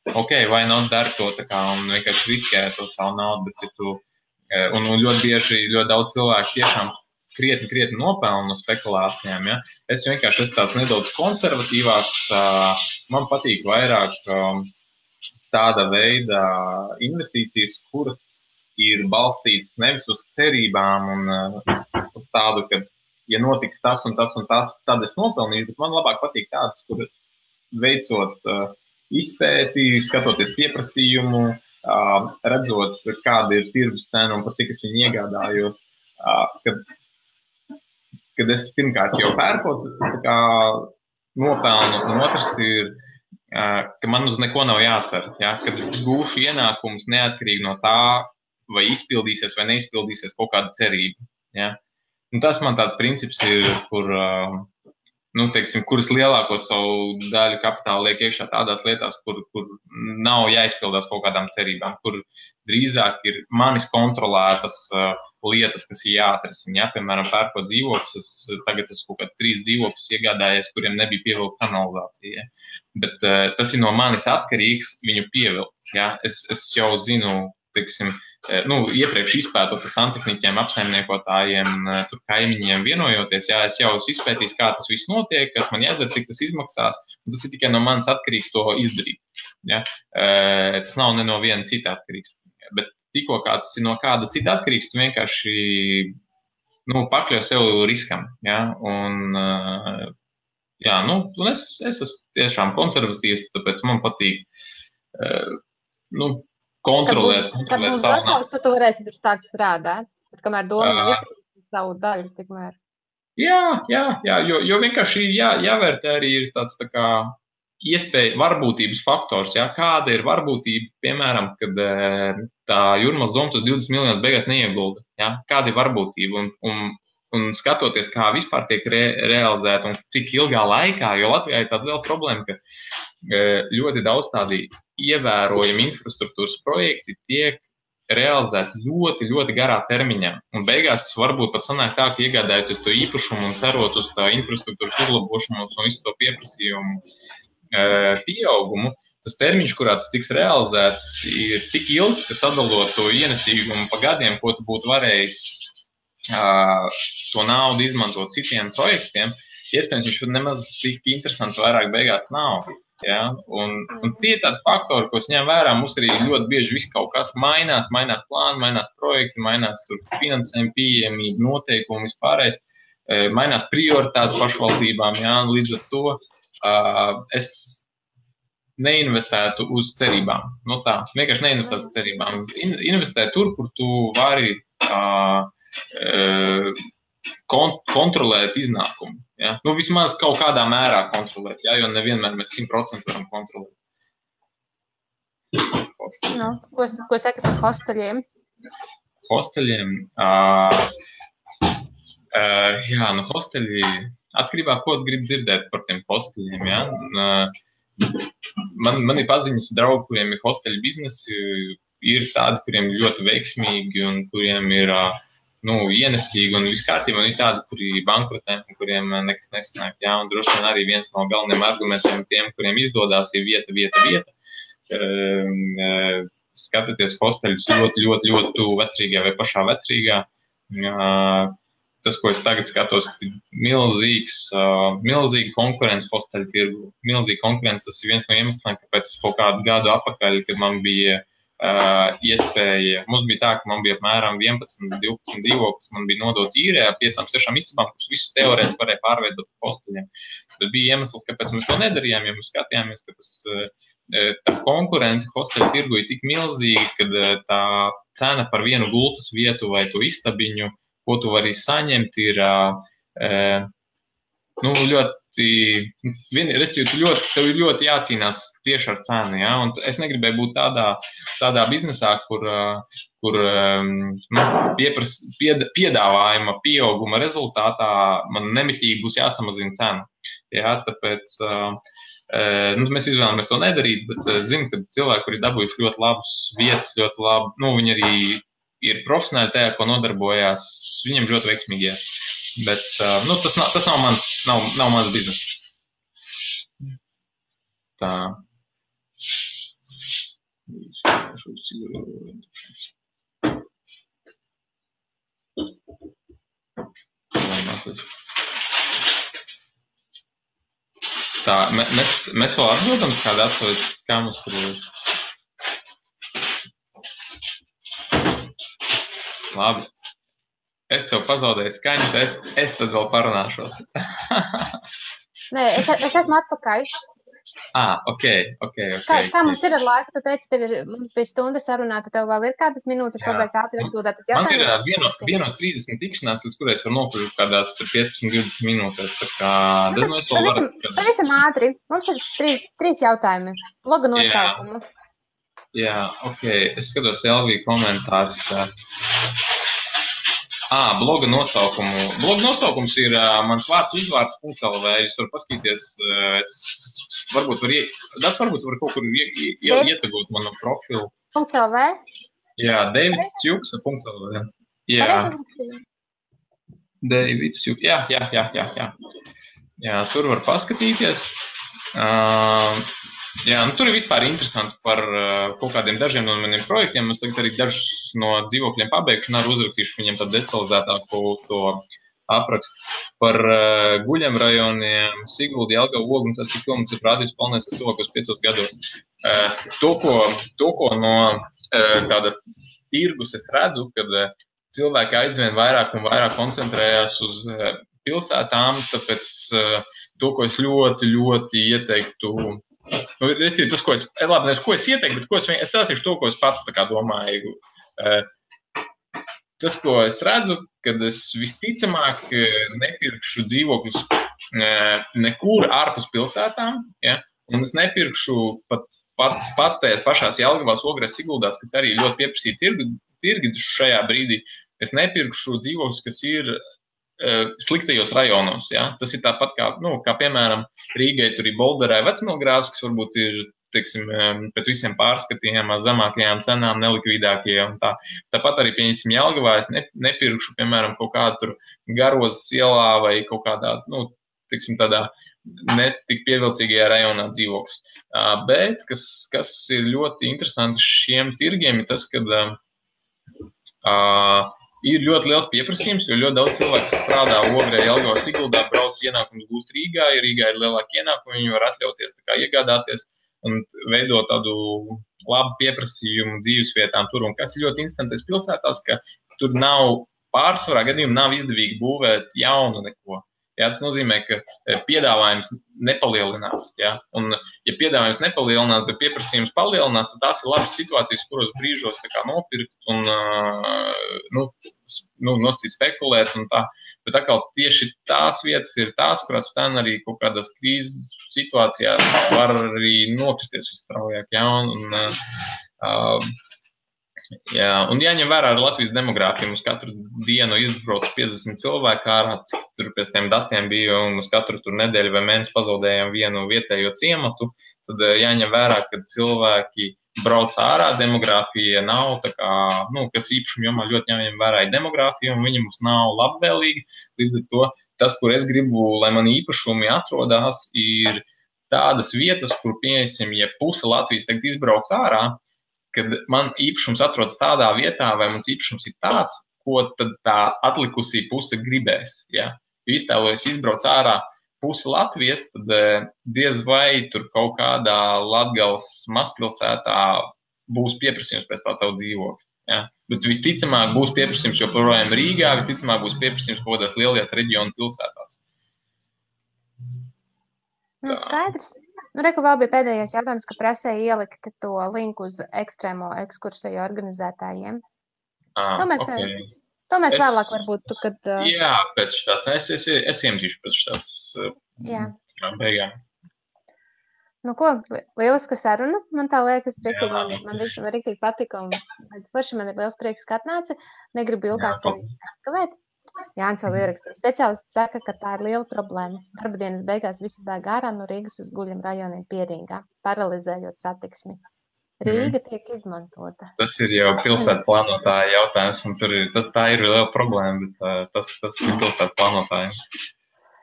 ok, vai not dari to un vienkārši riskē to savu naudu, bet un ļoti bieži ļoti daudz cilvēku tiešām krietni nopelnu no spekulācijām. Es vienkārši esmu tāds nedaudz konservatīvāks. Man patīk vairāk tāda veida investīcijas, kuras ir balstītas nevis uz cerībām un uz tādu, ka, ja notiks tas un tas un tas, tad es nopelnīšu, bet man labāk patīk tādas, kur veicot izpēti, skatoties pieprasījumu, redzot, kāda ir tirgus cena un par cik es viņu iegādājos, kad es pirmkārt jau pērkot, nopelnu, un otrs ir, ka man uz neko nav jācer, kad es gūšu ienākumus neatkarīgi no tā, vai izpildīsies vai neizpildīsies kaut kāda cerība. Un tas man tāds princips ir, kuras lielāko savu daļu kapitālu liek iekšā tādās lietās, kur nav jāizpildās kaut kādām cerībām, kur drīzāk ir manis kontrolētas lietas, kas ir jāatrisina. Piemēram, pērkot dzīvokļus, tagad es kaut kāds 3 dzīvokļus iegādājies, kuriem nebija pievilkta kanalizācija. Bet tas ir no manis atkarīgs viņu pievilkt. Es jau zinu, iepriekš izpētot ar santehniķiem, apsaimniekotājiem, tur kaimiņiem vienojoties, es jau esmu izpētījis, kā tas viss notiek, kas man jādara, cik tas izmaksās, un tas ir tikai no manis atkarīgs to izdarīt. Tas nav ne no viena cita atkarīgs. Bet tikko kā tas ir no kāda cita atkarīgs, tu vienkārši pakļauj sev riskam. Un es esmu tiešām konservatīvs, tāpēc man patīk kontrolēt savu naudu. Tad tu varēsi tur sākt strādāt, bet kamēr doma nav izdarīt savu daļu, tikmēr. Jo vienkārši jāvērtē arī ir tāds iespēja, varbūtības faktors, kāda ir varbūtība, piemēram, kad tā Jūrmalas doma tos 20 miljonus beigās neiegulda, kāda ir varbūtība un skatoties, kā vispār tiek realizēta un cik ilgā laikā, jo Latvijā ir tāda liela problēma, ka ļoti daudz tādi ievērojami infrastruktūras projekti tiek realizēti ļoti, ļoti garā termiņā. Un beigās varbūt pat sanāk tā, ka iegādājoties to īpašumu un cerot uz tā infrastruktūras uzlabošanos un visu to pieprasījumu pieaugumu, tas termiņš, kurā tas tiks realizēts, ir tik ilgs, ka sadalot to ienesīgumu pa gadiem, ko tu būtu varējis to naudu izmantot citiem projektiem, iespējams, viņš nemaz tik interesants vairāk beigās nav. Ja? Un tie ir tādi faktori, ko es ņem vērā. Mums arī ļoti bieži viss kaut kas mainās plāni, mainās projekti, mainās tur finansējumi, pieejamība, noteikumi, vispārējais. Mainās prioritātes pašvaldībām, jā, līdz ar to es neinvestētu uz cerībām. No tā, vienkārši neinvestētu uz cerībām. Investē tur, kur tu vari kontrolēt iznākumu. Ja? Nu, vismaz kaut kādā mērā kontrolēt, ja? Jo nevienmēr mēs 100% varam kontrolēt. Nu, ko saka par hosteļiem? Hosteļiem? Jā, nu hosteļi, atkarībā, ko grib dzirdēt par tiem hosteļiem, ja? Man ir paziņas draugi, kuriem ir hosteļu biznesi, ir tādi, kuriem ir ļoti veiksmīgi un kuriem ir ienesīgi un viss kārtībā, un ir tādi, kuri bankrotē un kuriem nekas nesanāk, ja? Un droši vien arī viens no galvenajiem argumentiem tiem, kuriem izdodās, ir vieta. Skatieties hosteļus ļoti tuvu vecrīgā vai pašā vecrīgā. Tas, ko es tagad skatos, ir milzīga konkurence hosteļu tirgu. Milzīga konkurence, tas ir viens no iemesliem, kāpēc kaut kādu gadu atpakaļ, kad man bija iespēja, mums bija tā, ka man bija apmēram 11-12 dzīvoklis, man bija nodot īrē 5-6 istabām, kurus visus teorētiski varēja pārveidot hosteļiem. Tad bija iemesls, kāpēc mēs to nedarījām, ja mēs skatījāmies, ka tā konkurence hosteļu tirgu ir tik milzīga, kad tā cena par vienu gultas vietu vai to istabiņu, ko tu vari saņemt, ir tev ir ļoti jācīnās tieši ar cenu, ja? Un es negribēju būt tādā biznesā, kur piedāvājuma pieauguma rezultātā man nemitīgi būs jāsamazina cena. Ja? Tāpēc mēs izvēlamies to nedarīt, bet zinu, ka cilvēki, kuri dabūjuši ļoti labus vietas, ļoti labi, viņi arī ir profesionāli tajā, ko nodarbojās, viņiem ļoti veiksmīgi. Bet tas nav mans biznes. Tā. Tā, mēs vēl atbildam kādu atsaukt, kā mums tur ir. Labi. Es tev pazaudēju skaņu, es tad vēl parunāšos. Nē, es esmu atpakaļ. Ok. Kā mums ir ar laiku? Tu teici, mums bija stunda sarunā, tad tev vēl ir kādas minūtes pabeigt ātri atbildēt uz jautājumu? Man ir 1:30 tikšanās, līdz kurai es varu nokļūt kādās 15-20 minūtēs. Tā kā, pavisam ātri. Mums ir 3 jautājumi. Bloga nosaukumu. Jā, ok. Es skatos Elvija komentārus. Bloga nosaukumu. Bloga nosaukums ir mans vārds/uzvārds.lv. Jūs varat paskatīties, varbūt var kaut kur ietagot manu profilu. .lv? Jā, davidsčuksa.lv. Jā. Davidsčuksa. Jā. Jā, tur var paskatīties. Jā, tur ir vispār interesanti par kaut kādiem dažiem no maniem projektiem. Es tagad arī dažus no dzīvokļiem pabeigšu un arī uzrakstīšu viņiem tādu detalizētāku to aprakstu par guļam rajoniem, Siguldi, Jelgavu, Ogu un tad tik mums ir prātības palnēs tuvākos 5 gados. To, ko no tāda tirgus es redzu, kad cilvēki aizvien vairāk un vairāk koncentrējās uz pilsētām, tāpēc to, ko es ļoti ieteiktu. Tas, ko es ieteiktu, bet es stāstīšu to, ko es pats tā kā domāju. Tas, ko es redzu, kad es visticamāk nepirkšu dzīvokļus nekur ārpus pilsētām, ja? Un es nepirkšu pat tajās pašās Jelgavās, Ogrēs, Siguldās, kas arī ļoti pieprasīja tirgi šajā brīdī. Es nepirkšu dzīvokļus, kas ir sliktajos rajonos, ja? Tas ir tāpat kā piemēram, Rīgai tur ir Bolderē Vecmilgrāvs, kas varbūt ir, teiksim, pēc visiem pārskatījām zemākajām cenām, nelikvidākajām. Tāpat arī, pieņemsim, Jelgavā es nepirkšu, piemēram, kaut kādu tur Garozas ielā vai kaut kādā, teiksim, tādā netik pievilcīgajā rajonā dzīvoklis. Bet, kas ir ļoti interesanti šiem tirgiem, ir tas, kad Ir ļoti liels pieprasījums, jo ļoti daudz cilvēku strādā Ogrē, Jelgavā, Siguldā, brauc ienākumus gūst Rīgā, ja Rīgā ir lielāki ienākumi, viņi var atļauties tā kā iegādāties un veidot tādu labu pieprasījumu dzīvesvietām tur. Un kas ir ļoti interesantais pilsētās, ka tur nav pārsvarā gadījumā nav izdevīgi būvēt jaunu neko. Jā, tas nozīmē, ka piedāvājums nepalielinās. Jā? Un, ja piedāvājums nepalielinās, bet pieprasījums palielinās, tad tās ir labas situācijas, kuros brīžos tā kā nopirkt un nosacīt spekulēt un tā. Bet atkal tieši tās vietas ir tās, kurās cena arī kaut kādās krīzes situācijās var arī nokristies visstraujāk. Jā? Jā, un jāņem vērā ar Latvijas demogrāfiju. Mums katru dienu izbrauc 50 cilvēku ārā, cik tur pēc tiem datiem bija, un uz katru tur nedēļu vai mēnesi pazaudējām vienu vietējo ciematu. Tad jāņem vērā, ka cilvēki brauc ārā, demogrāfija nav tā kā, kas īpašuma jomā ļoti jāņem vērā ir demogrāfija, un viņa mums nav labvēlīga. Līdz ar to tas, kur es gribu, lai man īpašumi atrodās, ir tādas vietas, kur, pieņemsim, ja puse Latvijas tagad izbraukt ārā, kad man īpašums atrodas tādā vietā, vai mans īpašums ir tāds, ko tad tā atlikusī puse gribēs. Ja? Ja iztēlojas izbrauc ārā pusi Latvijas, tad diez vai tur kaut kādā Latgales mazpilsētā būs pieprasījums pēc tā tavu dzīvokļu. Ja? Bet visticamāk būs pieprasījums joprojām Rīgā, visticamāk būs pieprasījums kaut kādās lielajās reģionu pilsētās. Skaidrs. Reku vēl bija pēdējais jautājums, ka prasēja ielikt to linku uz ekstrēmo ekskursiju organizētājiem. To mēs vēlāk varbūt, kad... Jā, pēc šitās, es iemetīšu pēc šitās beigām. Lieliska saruna, man tā liekas, man riktīgi patika, un paši man ir liels prieks, ka atnāci, negribu ilgāk tevi aizkavēt. Jānis vēl ierakstīs. Speciālisti saka, ka tā ir liela problēma. Darba dienas beigās visi bēg ārā no Rīgas uz guļam rajoniem pie Rīgā, paralizējot satiksmi. Rīga tiek izmantota. Tas ir jau pilsētu plānotāja jautājums, un tā ir liela problēma, bet tas ir pilsētu plānotājiem.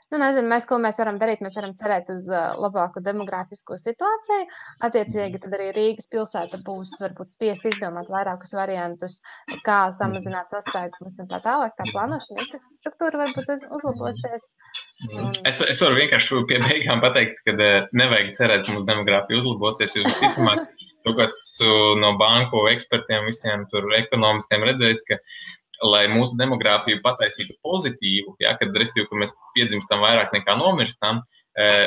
Nezinu, ko mēs varam darīt. Mēs varam cerēt uz labāku demogrāfisko situāciju. Attiecīgi, tad arī Rīgas pilsēta būs varbūt spiest izdomāt vairākus variantus, kā samazināt sastrēgumus un tā tālāk. Tā plānošana infrastruktūra varbūt uzlabosies. Es varu vienkārši pie beigām pateikt, ka nevajag cerēt, ka mūsu demogrāfija uzlabosies, jo visticamāk, to, kas no banku ekspertiem, visiem tur ekonomistiem redzējis, ka lai mūsu demogrāfiju pataisītu pozitīvu, kad mēs piedzimstam vairāk nekā nomirstam,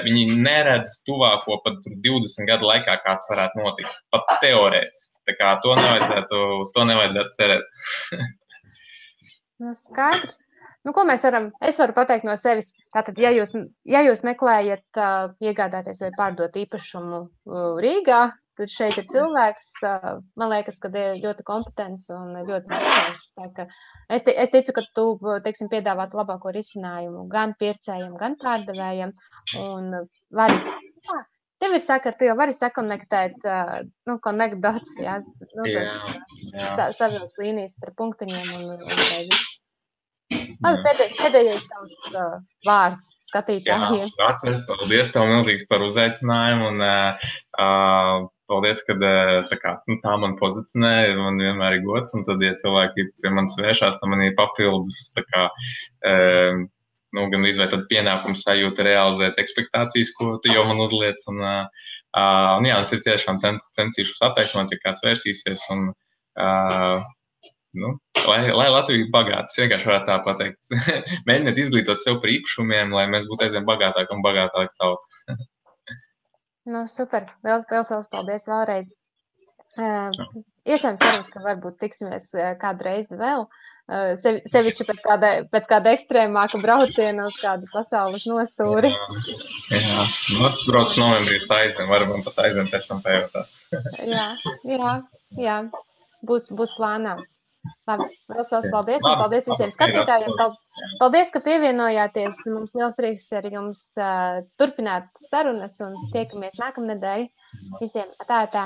viņi neredz tuvāko pat 20 gadu laikā, kāds varētu notikt. Pat teorētiski. Tā kā uz to nevajadzētu cerēt. Skaidrs. Ko mēs varam? Es varu pateikt no sevis. Tātad, ja jūs meklējat iegādāties vai pārdot īpašumu Rīgā, tad šeit ir cilvēks, man liekas, ka ir ļoti kompetents un ļoti zinošs. Es ticu, ka tu, piedāvāt labāko risinājumu gan pircējiem, gan pārdevējiem. Un tev ir saka, tu jau vari sakonektēt, connect dots, jā. Savilkt līnijas ar punktiņiem un pēdējais tavs vārds skatītājiem. Jā, paldies tev milzīgs par uzaicinājumu un paldies, ka tā man pozicionē, man vienmēr ir gods, un tad, ja cilvēki pie manis vēršās, tad man ir papildus, gan izvērt tad pienākums sajūta realizēt ekspektācijas, ko tu jau man uzliec, un es ir tiešām centīšos attaisnot, ja kāds vērsīsies, un lai Latvija ir bagāta, es vienkārši varētu tā pateikt. Mēģiniet izglītot sev par īpašumiem, lai mēs būtu aizvien bagātāki un bagātāki tauta. Super. Liels paldies vēlreiz. Iespējams, cerams, ka varbūt tiksimies kādu reizi vēl. Sevišķi pēc kāda ekstrēmāka brauciena uz kādu pasaules nostūri. Jā. Tas brauc novembrī aizvien, varbūt pat aizvien pēc tam pējotā. Jā. Būs plānā. Labi, liels paldies un paldies visiem skatītājiem. Paldies, ka pievienojāties. Mums liels prieks ar jums turpināt sarunas un tiekamies nākamnedēļ. Visiem tā.